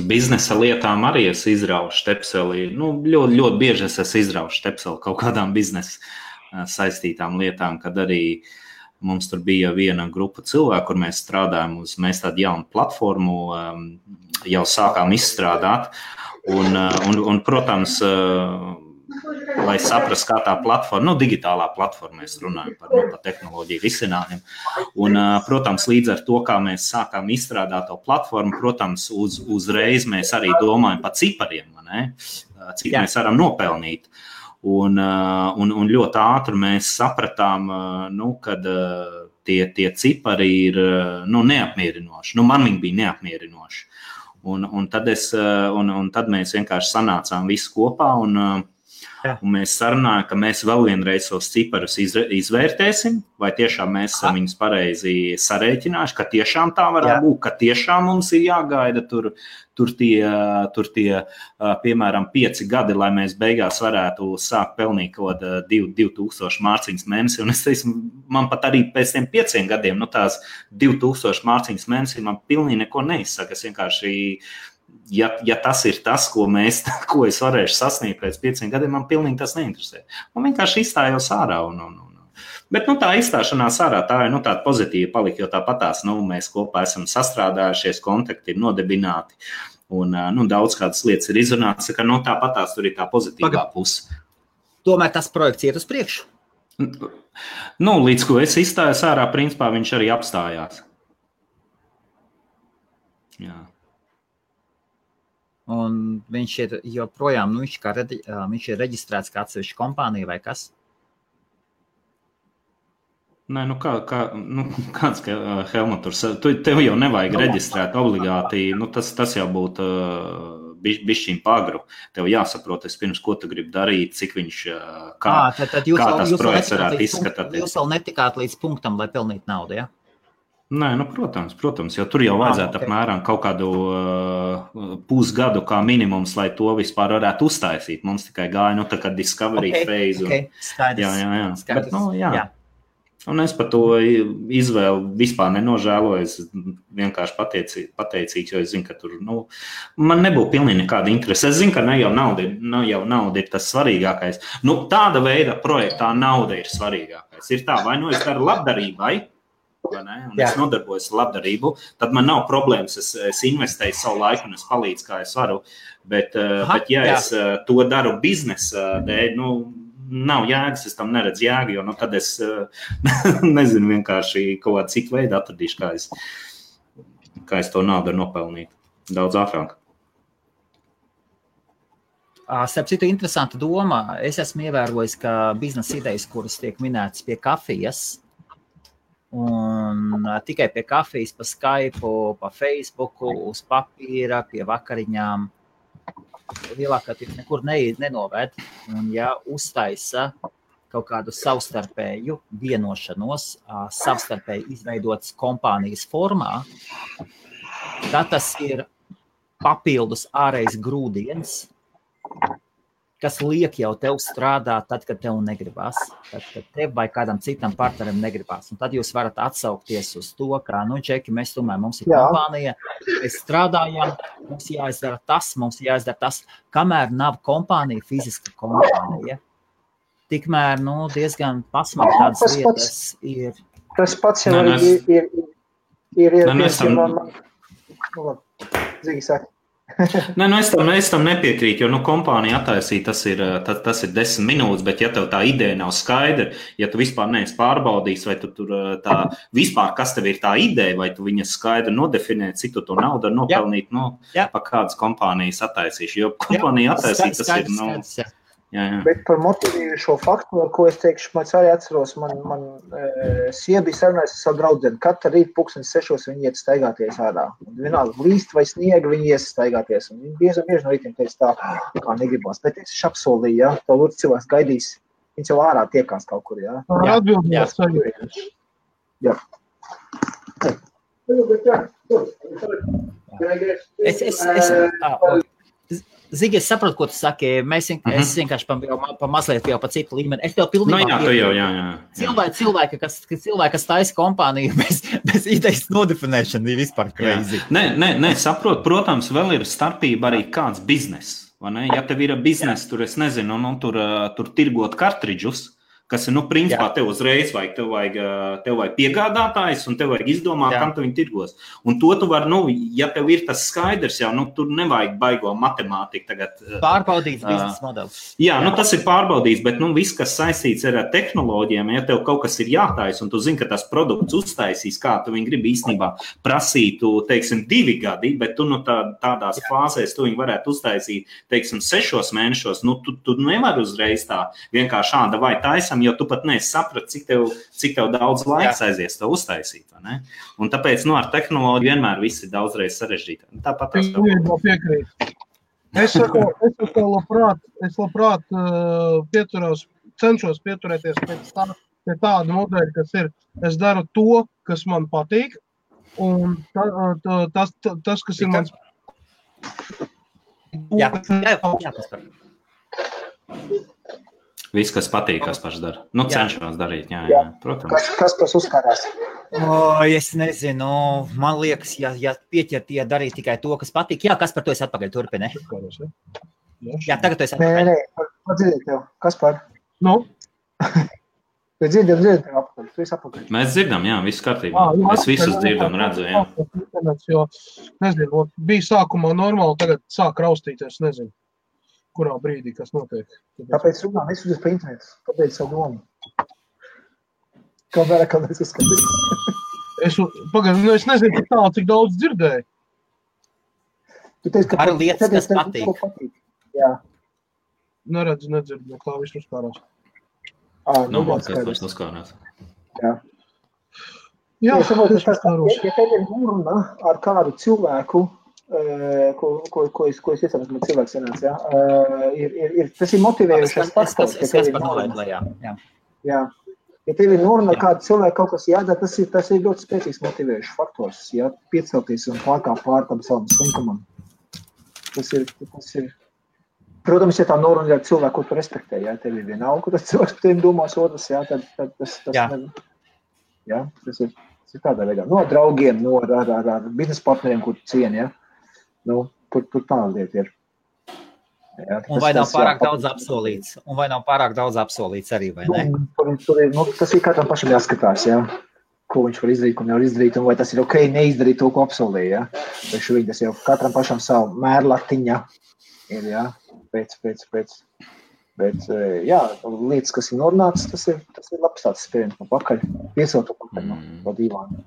biznesa lietām arī es izraušu štepseli. Ļoti bieži es izraušu štepseli kaut kādām biznesa saistītām lietām, kad arī mums tur bija viena grupa cilvēku, kur mēs strādājam mēs tādu jaunu platformu jau sākām izstrādāt. Un protams, lai saprast, kā tā platforma, digitālā platforma, mēs runājam par tehnoloģiju risinājumiem. Un, protams, līdz ar to, kā mēs sākām izstrādāt to platformu, protams, uzreiz mēs arī domājam par cipariem, cik mēs varam nopelnīt. Un ļoti ātri mēs sapratām, kad tie cipari ir neapmierinoši. Man viņi bija neapmierinoši. Un tad mēs vienkārši sanācām visi kopā un mēs sarunājam, ka mēs vēl vienreiz tos ciparus izvērtēsim, vai tiešām mēs esam viņus pareizi sarēķinājuši, ka tiešām tā varētu būt, ka tiešām mums ir jāgaida tur tie piemēram 5 gadi, lai mēs beigās varētu sākt pelnīt kaut 2000 mārciņas mēnesi. Un es teicu, man pat arī pēc tiem 5 gadiem, tās 2000 mārciņas mēnesi man pilnīgi neko neizsaka. Es vienkārši ja tas ir tas, ko es varēšu sasniegt pēc 5 gadiem, man pilnīgi tas neinteresē. Man vienkārši izstājos ārā. Bet tā izstāšanās ārā, tā ir tāda pozitīva palika, jo tāpatās mēs kopā esam sastrādājušies, kontakti ir nodibināti un daudz kādas lietas ir izrunātas, ka tāpatās tur ir tā pozitīvā puse. Tomēr tas projekts iet uz priekšu? Līdz ko es izstājos ārā, principā viņš arī apstājās. Jā. Un viņš ir joprojām, viņš ir reģistrēts kā atsevišķa kompānija vai kas? Nē, kāds Helmuts, tev jau nevajag reģistrēt obligāti, tas jau būtu bišķiņ pagru. Tev jāsaprot, pirms ko tu gribi darīt, cik viņš, kā tas projekts varētu izskatāt. Jūs vēl netikāt līdz punktam, lai pelnītu naudu, ja? Nē, protams, jo tur jau vajadzētu apmēram kaut kādu pusgadu kā minimums, lai to vispār varētu uztaisīt. Mums tikai gāja, tā kā discovery phase. Skaidrs. Bet, jā. Un es par to izvēlu vispār nenožēloju. Es vienkārši pateicīgs, jo es zinu, ka tur, man nebūtu pilnīgi nekāda interese. Es zinu, ka ne jau nauda ir tas svarīgākais. Tāda veida projektā nauda ir svarīgākais. Ir tā, vai es daru labdarībai, un es nodarbojos ar labdarību, tad man nav problēmas, es investēju savu laiku un es palīdzu, kā es varu, bet es to daru biznesa dēļ, nav jēgas, es tam neredzu jēgu, jo tad es nezinu vienkārši kaut kādu citu veidu atradīšu, kā es to naudu nopelnīt daudz ātrāk. Starp citu, interesanta doma. Es esmu ievērojis, ka biznesa idejas, kuras tiek minētas pie kafijas, un tikai pie kafijas, pa Skype, pa Facebooku, uz papīra, pie vakariņām, lielākā tiek nekur nenovēd. Un ja uztaisa kaut kādu savstarpēju vienošanos, savstarpēji izveidotas kompānijas formā, tad tas ir papildus ārējs grūdiens, kas liek jau tev strādāt tad, kad tev negribas, tad, kad tev vai kādam citam partnerim negribas. Un tad jūs varat atsaukties uz to, ka, čeki, mēs tomēr, mums ir kompānija, mēs strādājam, mums jāizdara tas, kamēr nav kompānija, fiziska kompānija. Tikmēr, diezgan pasmāk tādas lietas ir. Tas pats jau ir Zigi saka. Nē, es tam nepiekrītu, jo kompānija attaisīja, tas ir 10 minūtes, bet ja tev tā ideja nav skaidra, ja tu vispār neesi pārbaudījis, vai tu tur tā vispār, kas tev ir tā ideja, vai tu viņas skaidri nodefinē, cik tu to naudu var nopelnīt, pa kādas kompānijas attaisīšu, jo kompānija attaisīja, tas ir, skaidrs. Jā. Bet par motivējušo faktoru, ko es teikšu, man arī atceros, man sieva bija sarunājusi ar savu draudzeni. Katru rītu 6:00 viņi iet staigāties ārā. Vienalga līst vai sniega, viņi ies staigāties. Un viņi bieži no rītiem teica tā, kā negribās. Bet es apsolīju, ja, tā lūdzu cilvēks gaidīs, viņš jau ārā tiekās kaut kur, ja. Atbildījās saņemties. Jā. Zigi, es saprotu, ko tu saki. Es vienkārši pa mazliet jau pa citu līmeni. Es tev pilnībā cilvēki, kas taisa kompāniju bez idejas nodefinēšana ir vispār crazy. Nē, saprotu. Protams, vēl ir starpība arī kāds biznes. Vai ne? Ja tev ir biznes, tur es nezinu, tur tirgot kartridžus, kas ir, principā, tev uzreiz vajag, tev vajag piegādātājs un tev vajag izdomāt, kam tu viņu tirgos. Un to tu vari, ja tev ir tas skaidrs jau, tur nevajag baigo matemātiku tagad. Pārbaudīts biznesa modelis. Jā, tas ir pārbaudīts, bet, viss, kas saistīts ar tehnoloģijām, ja tev kaut kas ir jātais un tu zini, ka tas produkts uztaisīs, kā tu viņu gribi īstenībā prasītu, teiksim, 2 gadi, bet tu, tādās fāzēs tu viņu varētu uztaisīt, teiksim, 6 mēnešos, tu nevari uzreiz tā vienkārši šāda vai taisam, jo tu pat nesaprat, cik tev daudz laiks aizies to uztaisīt, vai ne? Un tāpēc, ar tehnoloģiju vienmēr viss ir daudzreiz sarežģītāk. Tāpat tas tev. Piekrīt. Es labprāt cenšos pieturēties pie tāda modeļa, kas ir, es daru to, kas man patīk, un tas kas ir mans... Jā, paspēr. Viss, kas patīk, kas paši dara. Cenšos darīt, jā, protams. Kas tas uzkārās? Es nezinu, man liekas, ja pieķertie darīt tikai to, kas patīk. Jā, kas par to es atpakaļ turpini? Jā, tagad tu esi atpakaļ. Nē, padzirdēt tev. Kas par? Dzirdam tev apakaļ. Tu esi apakaļ. Mēs dzirdam, jā, viss kārtībā. Es visus dzirdam, redzu, jā. Jo, nezinu, bija sākumā normāli, tagad sāk raustīties, nezinu. Kurā brīdī, kas notiek. Tāpēc runā, nesudies pa internetu. Tāpēc savu domu. Kā vērā, kā mēs uzskatīt. Es nezinu, cik daudz dzirdēju. Tu teici, ka ar lietas, kas patīk. Jā. Neredzu, nedzirdu, kā viss uzkārās. Mācies uzkārās. Jā. Jā, ja tev ir runa ar kādu cilvēku, ko es iesaku, kad cilvēks sanāc, tas ir motivējušais faktors. Es par nolaidu, jā. Ja tev ir noruna kādu cilvēku kaut kas jādara, tas ir ļoti spēcīgs motivējušs faktors, piecelties un pārkāpt pār tam savam slinkumam. Tas ir. Protams, ja tā noruna ir cilvēku, ko tu respektē, tev ir vienalga, ko tas cilvēks par tevi domās otrs, tad tas ir tādā veidā. No draugiem, ar biznesa partneriem, kur tu cieni, tur tāda lieta ir. Un vai nav pārāk daudz apsolīts arī, vai ne? Tas ir katram pašam jāskatās, ko viņš var izdarīt, ko nevar izdarīt, un vai tas ir ok neizdarīt to, ko apsolīja, Vai šobrīd tas jau katram pašam savu mērlatiņa ir, pēc. Bet, lietas, kas ir norunātas, tas ir labs tāds spiediens no pakaļ, piesaukt to pakaļ no dīvāna.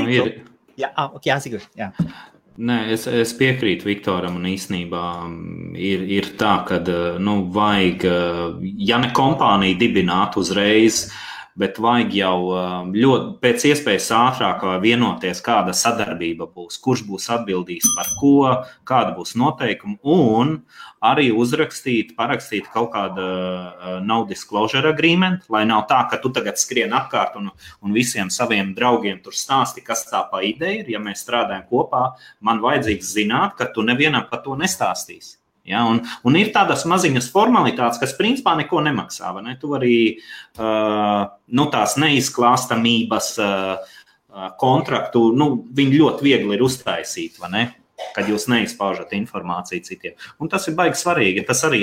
Ir. Jā, Sigurd, jā. Nē, es piekrītu Viktoram un īstenībā ir tā, ka vajag, ja ne kompāniju dibināt uzreiz, bet vajag jau ļoti pēc iespējas ātrāk vienoties, kāda sadarbība būs, kurš būs atbildīgs par ko, kāda būs noteikuma, un arī parakstīt kaut kāda non-disclosure agreement, lai nav tā, ka tu tagad skrien apkārt un visiem saviem draugiem tur stāsti, kas tā pa ideja ir. Ja mēs strādājam kopā, man vajadzīgs zināt, ka tu nevienam par to nestāstīsi. Ja, un ir tādas maziņas formalitātes, kas principā neko nemaksā. Vai ne? Tu arī tās neizklāstamības kontraktu, viņi ļoti viegli ir uztaisīt, vai ne? Kad jūs neizpaužat informāciju citiem. Un tas ir baigi svarīgi. Tas arī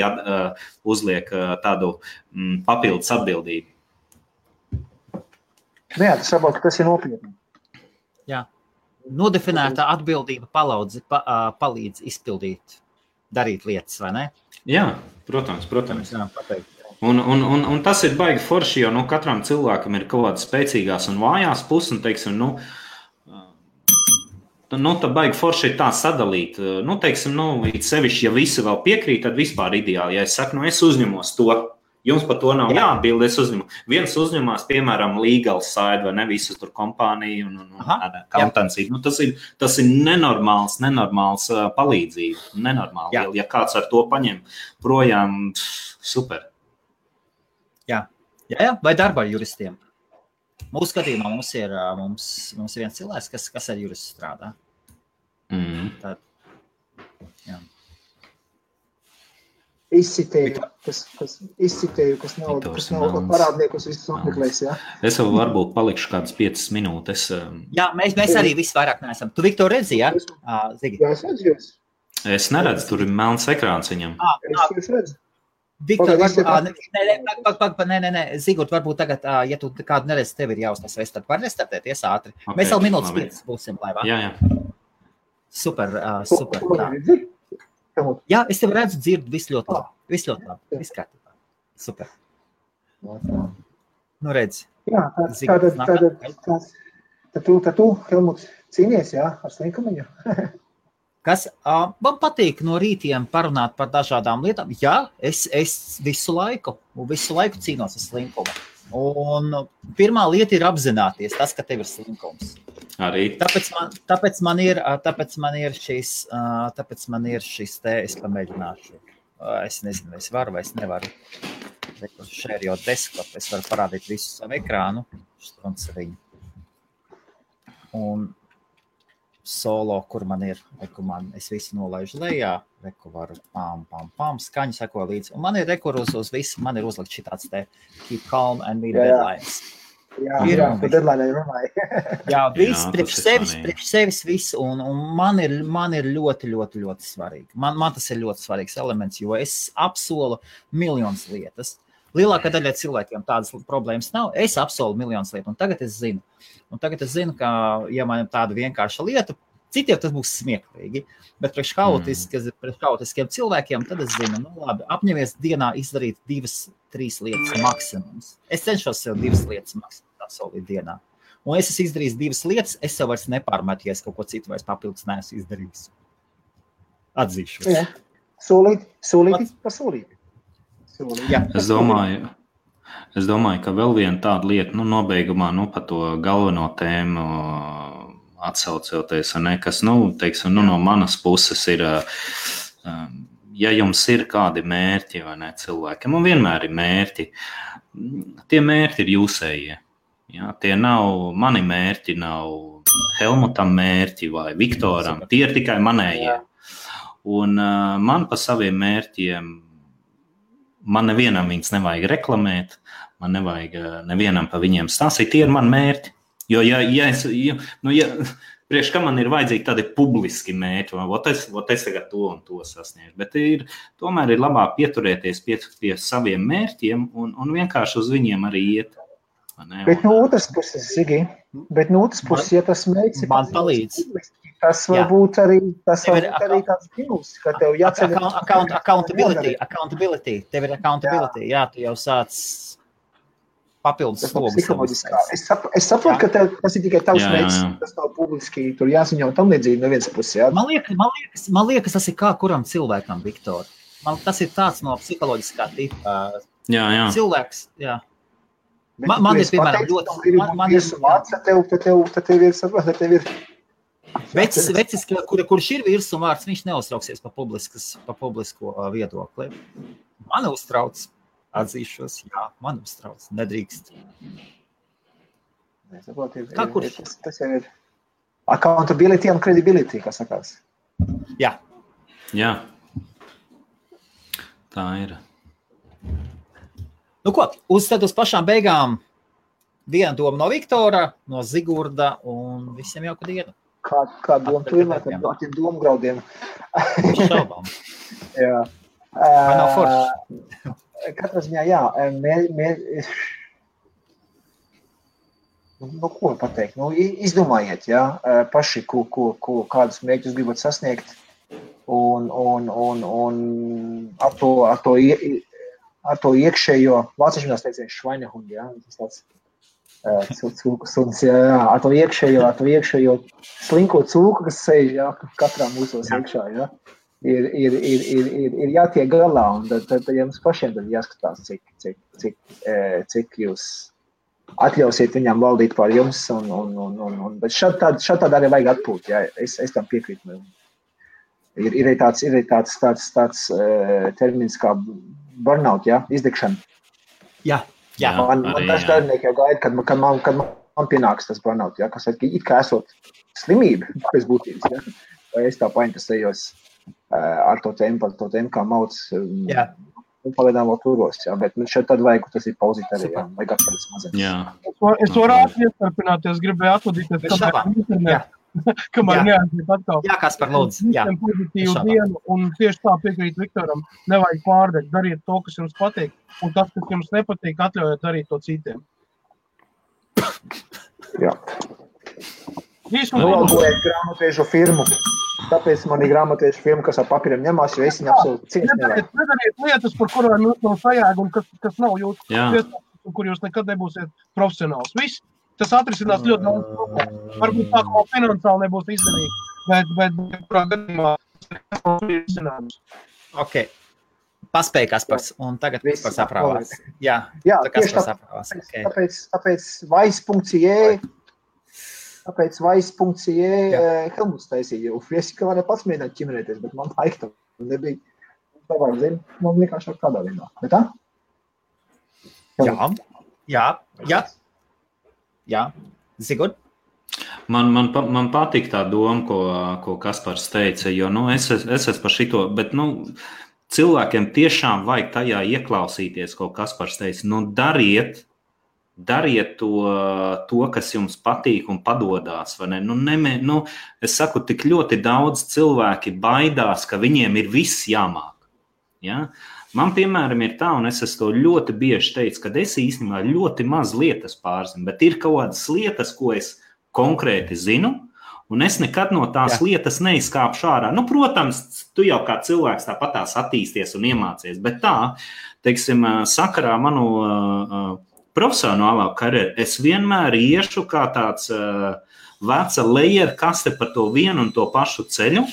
uzliek tādu papildus atbildību. Jā, tas saprot, ka tas ir nopietni. Jā. Nodefinēta atbildība palīdz izpildīt, darīt lietas, vai ne? Jā, protams. Un tas ir baigi forši, jo katram cilvēkam ir kaut kādas spēcīgās un vājās puses, un teiksim, tā baigi forši ir tā sadalīt. Teiksim, it sevišķi, ja visi vēl piekrīt, tad vispār ideāli. Ja es saku, es uzņemos to, jums par to nav jāatbild, es uzņemu. Viens uzņemās, piemēram, legal side, vai ne, visu tur kompāniju un accountancy. Tas ir nenormāls palīdzība. Nenormāli. Ja kāds ar to paņem projām, super. Jā. Vai darba ar juristiem? Mūsu skatījumā mums ir viens cilvēks, kas ar juristu strādā. Tad, jā. Izcitēju, kas nav parādniekus visus apmeklēs, jā? Es vēl varbūt palikšu kādas 5 minūtes. Jā, mēs arī visu vairāk neesam. Tu, Viktor, redzi, jā? Zigi? Jā, es redzu jūs. Es neredzu, tur ir melns ekrāns viņam. Es redzu. Viktor, nē, Zigurt, varbūt tagad, ja tu kādu neredzi, tev ir jāuztas, tad var restartēties ātri. Okay, mēs vēl minūtes 5 būsim laivā. Jā. Super. Jā, es tev redzu, dzirdu, viss ļoti labi. Viss kārtībā. Super. Redzi. Jā, tad tu, Helmuts, cīnies, jā, ar slinkumiņu. Kas man patīk no rītiem parunāt par dažādām lietām. Jā, es visu laiku cīnos ar slinkumu. Un pirmā lieta ir apzināties tas, ka tev ir slinkums. Arī. Tāpēc man ir šis te, es pamēģināšu. Es nezinu, vai es varu, vai es nevaru. Share your desktop, es varu parādīt visu savu ekrānu. Un solo, kur man ir, es visu nolaižu lejā, varu skaņu seko līdzi. Un man ir uz visu, man ir uzlikt šitāds te keep calm and meet deadlines. Jā, par deadline runāju. Jā, viss priekš sevis viss, un man ir ļoti, ļoti, ļoti svarīgi. Man tas ir ļoti svarīgs elements, jo es apsolu miljonus lietas. Lielākā daļa cilvēkiem tādas problēmas nav. Es apsolu miljonus lietu, un tagad es zinu, ka, ja man ir tāda vienkārša lieta, citiem tas būs smieklīgi, bet priekš haotiskiem cilvēkiem, tad es zinu, labi, apņemies dienā izdarīt 2-3 lietas maksimums. Es cenšos sev 2 lietas maksimums apsolīt dienā. Un es esmu izdarījis 2 lietas, es sev vairs nepārmetu, ja es kaut ko citu vairs papildus neesmu izdarījis. Atzīšos. Jā. Solīti par solīti. Jā. Es domāju, ka vēl viena tāda lieta, nobeigumā, par to galveno tēmu atsaucoties, kas, teiksim, no manas puses ir, ja jums ir kādi mērķi, vai ne, cilvēkiem, un vienmēr ir mērķi, tie mērķi ir jūsējie. Ja, tie nav, mani mērķi nav Helmutam mērķi vai Viktoram, tie ir tikai manējie. Un man pa saviem mērķiem, man nevienam viņus nevajag reklamēt, man nevajag nevienam pa viņiem stāstīt, tie ir mani mērķi. Jo, priekš kā man ir vajadzīgi tādi publiski mērķi, es tagad to un to sasniegšu, bet tomēr ir labāk pieturēties pie saviem mērķiem un vienkārši uz viņiem arī iet. Bet no otras puses, Zigi, ja tas mērķis man palīdz. Tas varbūt arī tāds minus, ka tev jāceļ. Accountability. Tev ir accountability. Jā, tu jau sāc papildus slogus. Es saprotu, ka tas ir tikai tavs mērķis, tas nav publiski, tur jāziņo tam līdzīgi no vienas puses. Jā. Man liekas, tas ir kā kuram cilvēkam, Viktor. Tas ir tāds no psiholoģiskā tipa. Jā. Cilvēks, jā. Man ir, piemēram, tev ir vecis, kurš ir virs un vārds, viņš neuztrauksies pa publisko viedokli. Man uztrauc. Atzīšos, jā, man uztrauc, nedrīkst. Kā kurš? Tas jau ir accountability un credibility, kā sakās. Jā. Tā ir. Nu ko, uz pašām beigām viena doma no Viktora, no Zigurda un visiem jauku dienu. Kā doma tu vienmēr ar tiem domgraudiem? Šaubām. Jā. Vai nav forši? Katrā ziņā, jā. Nu, ko pateikt? Nu, izdomājiet, jā, paši, kādus mērķus gribat sasniegt un ar to iekšējo, vāciešinās teiciens Schweinehundi, jā, tas tāds cūku suns, jā, ar to iekšējo slinko cūku, kas sēž, jā, katrā mūsos iekšā, jā, ir jātiek galā, un tad jums pašiem tad jāskatās, cik jūs atļausiet viņam valdīt pār jums, bet šādā arī vajag atpūt, jā, es tam piekrītu. Ir tāds termins kā burnout, jā, izdegšana. Jā. Man daži darbinieki jau gaida, kad man pienāks tas burnout, jā, kas it kā esot slimība pēc būtības, jā, vai es tā painteresējos ar to tēmu, kā mauc, pagaidām vēl turos, jā, bet šeit tad vajag, tas ir pauzīt arī, jā, vajag atpēdis mazliet. Jā. Es varu iestarpināties, gribēju atvadīties, kamēr neaiziet atkal. Jā, Kaspar, lūdzu. Jā. Pozitīvu dienu, un tieši tā piekrīt Viktoram, nevajag pārdegt, dariet to, kas jums patīk, un tas, kas jums nepatīk, atļaujiet darīt to citiem. Jā. Novalgojiet grāmatiešu firmu, tāpēc man ir grāmatiešu firma, kas ar papīriem ņemās, jo es viņu absolūti cienstu nevajag. Nedariet lietas, par kurām jūs nav sajēga un kas nav jūsu iestādes, kur jūs nekad nebūsiet profesionāls. Viss. Tas atrisinās ļoti daudz problēmu. Varbūt tā, kā finansiāli nebūs izdevīgi, bet kurā gadījumā tas ir izcinājums. Ok. Paspēja Kaspars, un tagad Kaspars aprāvās. Jā, tieši tāpēc Vice.ie Helmuts taisīja, jo es kā varēju pats mēģināt ķimerēties, bet man laika tam nebija. Tavāk zinu, man vienkārši kādā vienā. Bet tā? Jā, Zigurd? Man patīk tā doma, ko Kaspars teica, jo es esmu par šito, bet cilvēkiem tiešām vajag tajā ieklausīties, ko Kaspars teica. Dariet to, kas jums patīk un padodās. Vai ne? Es saku, tik ļoti daudz cilvēki baidās, ka viņiem ir viss jāmāk. Ja? Man, piemēram, ir tā, un es to ļoti bieži teicu, ka es īstenībā ļoti maz lietas pārzinu, bet ir kaut kādas lietas, ko es konkrēti zinu, un es nekad no tās lietas neizkāpšu ārā. Protams, tu jau kā cilvēks tāpatās attīsties un iemācies, bet tā, teiksim, sakarā manu profesionālā karjeru, es vienmēr iešu kā tāds veca lejer kaste par to vienu un to pašu ceļu,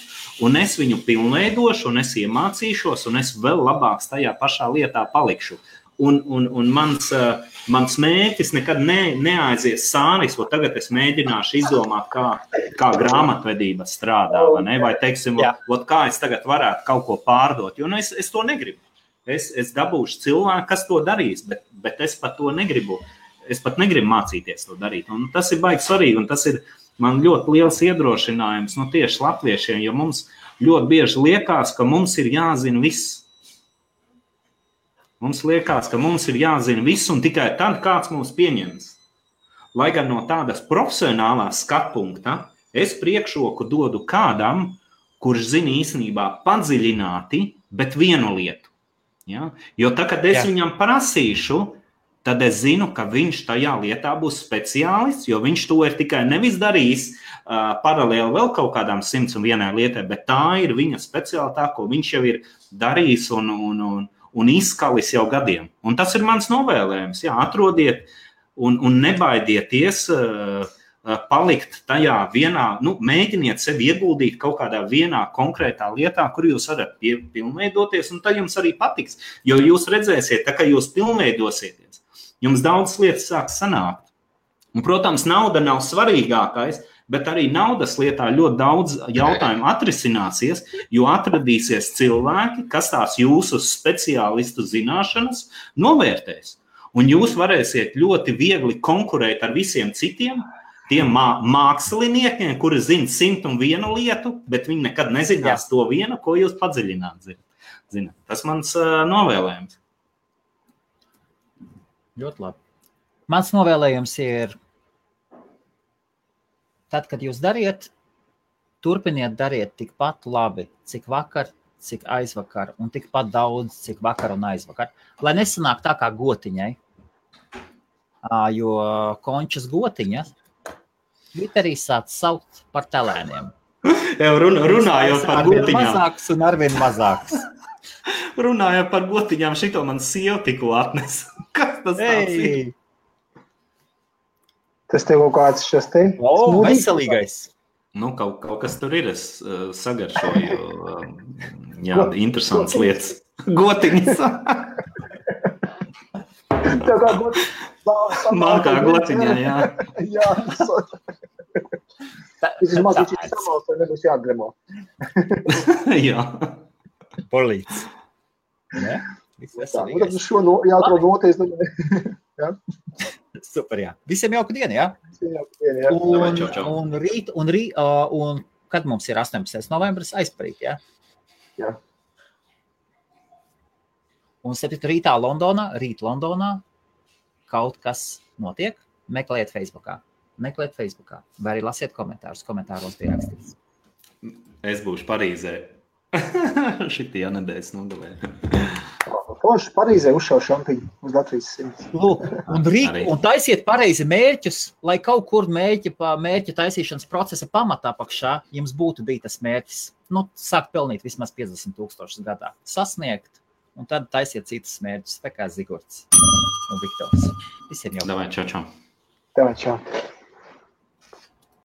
un es viņu pilnveidošu, un es iemācīšos, un es vēl labāks tajā pašā lietā palikšu. Un mans mērķis nekad neaizies sānis, jo tagad es mēģināšu izdomāt, kā grāmatvedība strādā, vai teiksim, kā es tagad varētu kaut ko pārdot, jo es to negribu. Es dabūšu cilvēku, kas to darīs, bet es pat to negribu. Es pat negribu mācīties to darīt, un tas ir baigi svarīgi, un tas ir man ļoti liels iedrošinājums tieši latviešiem, jo mums ļoti bieži liekas, ka mums ir jāzina viss. Mums liekas, ka mums ir jāzina viss, un tikai tad kāds mūs pieņems. Lai gan no tādas profesionālās skatpunkta es priekšroku dodu kādam, kurš zina īstenībā padziļināti, bet vienu lietu. Ja? Jo tā, kad es viņam prasīšu, tad es zinu, ka viņš tajā lietā būs speciālists, jo viņš to ir tikai nevis darījis paralēli vēl kaut kādām 101 lietai, bet tā ir viņa speciālitāte, ko viņš jau ir darījis un izskalis jau gadiem. Un tas ir mans novēlējums. Jā, atrodiet un nebaidieties palikt tajā vienā, mēģiniet sevi ieguldīt kaut kādā vienā konkrētā lietā, kur jūs varat pilnveidoties, un tad jums arī patiks. Jo jūs redzēsiet, tā kā jūs pilnveidosieties, jums daudz lietas sāks sanākt. Un, protams, nauda nav svarīgākais, bet arī naudas lietā ļoti daudz jautājumu atrisināsies, jo atradīsies cilvēki, kas tās jūsu speciālistu zināšanas novērtēs. Un jūs varēsiet ļoti viegli konkurēt ar visiem citiem, tiem māksliniekiem, kuri zina 101 lietu, bet viņi nekad nezinās to vienu, ko jūs padziļināt zināt. Zini, tas mans novēlējums. Ļoti labi. Mans novēlējums ir, tad, kad jūs dariet, turpiniet dariet tikpat labi, cik vakar, cik aizvakar, un tikpat daudz, cik vakar un aizvakar. Lai nesanāk tā kā gotiņai, jo končas gotiņa Twitterī sāc saukt par telēniem. Jau runājot par gotiņām. Mazāks un arvien mazāks. Runājot par gotiņām, šito man sieva tikko atnes. Kas tas tāds ir? Tas tev kaut kāds šis te? Veselīgais. Nu, kaut kas tur ir. Es sagaršoju interesantas lietas. Gotiņas. Tā kā gotiņa. Man kā gotiņā, jā. Jā. Vismaz viņš ir samals, vai nebūs jāgremo. Jā. Polīts. Ne? Viss veselīgais. Tad šo jāatrod noties. Jā. Super, jā. Visiem jauka diena, jā? Visiem jauka diena, jā. Un kad mums ir 18. novembris aizparīt, jā? Jā. Un 7. rītā Londonā kaut kas notiek, meklējiet Facebookā. Vai arī lasiet komentārus. Komentāros bija rakstīts. Es būšu Parīzē. Šitie nedēļas nogalē. Forši Parīzē uzšauj šampiņu uz Latvijas 100. Lūk, un taisiet pareizi mērķus, lai kaut kur mērķa taisīšanas procesa pamatā pakšā jums būtu bija tas mērķis. Sākt pelnīt vismaz 50,000 gadā. Sasniegt, un tad taisiet citas mērķus, tā kā Zigorts un Viktors. Visiem jau. Davai, čau. Davai, čau.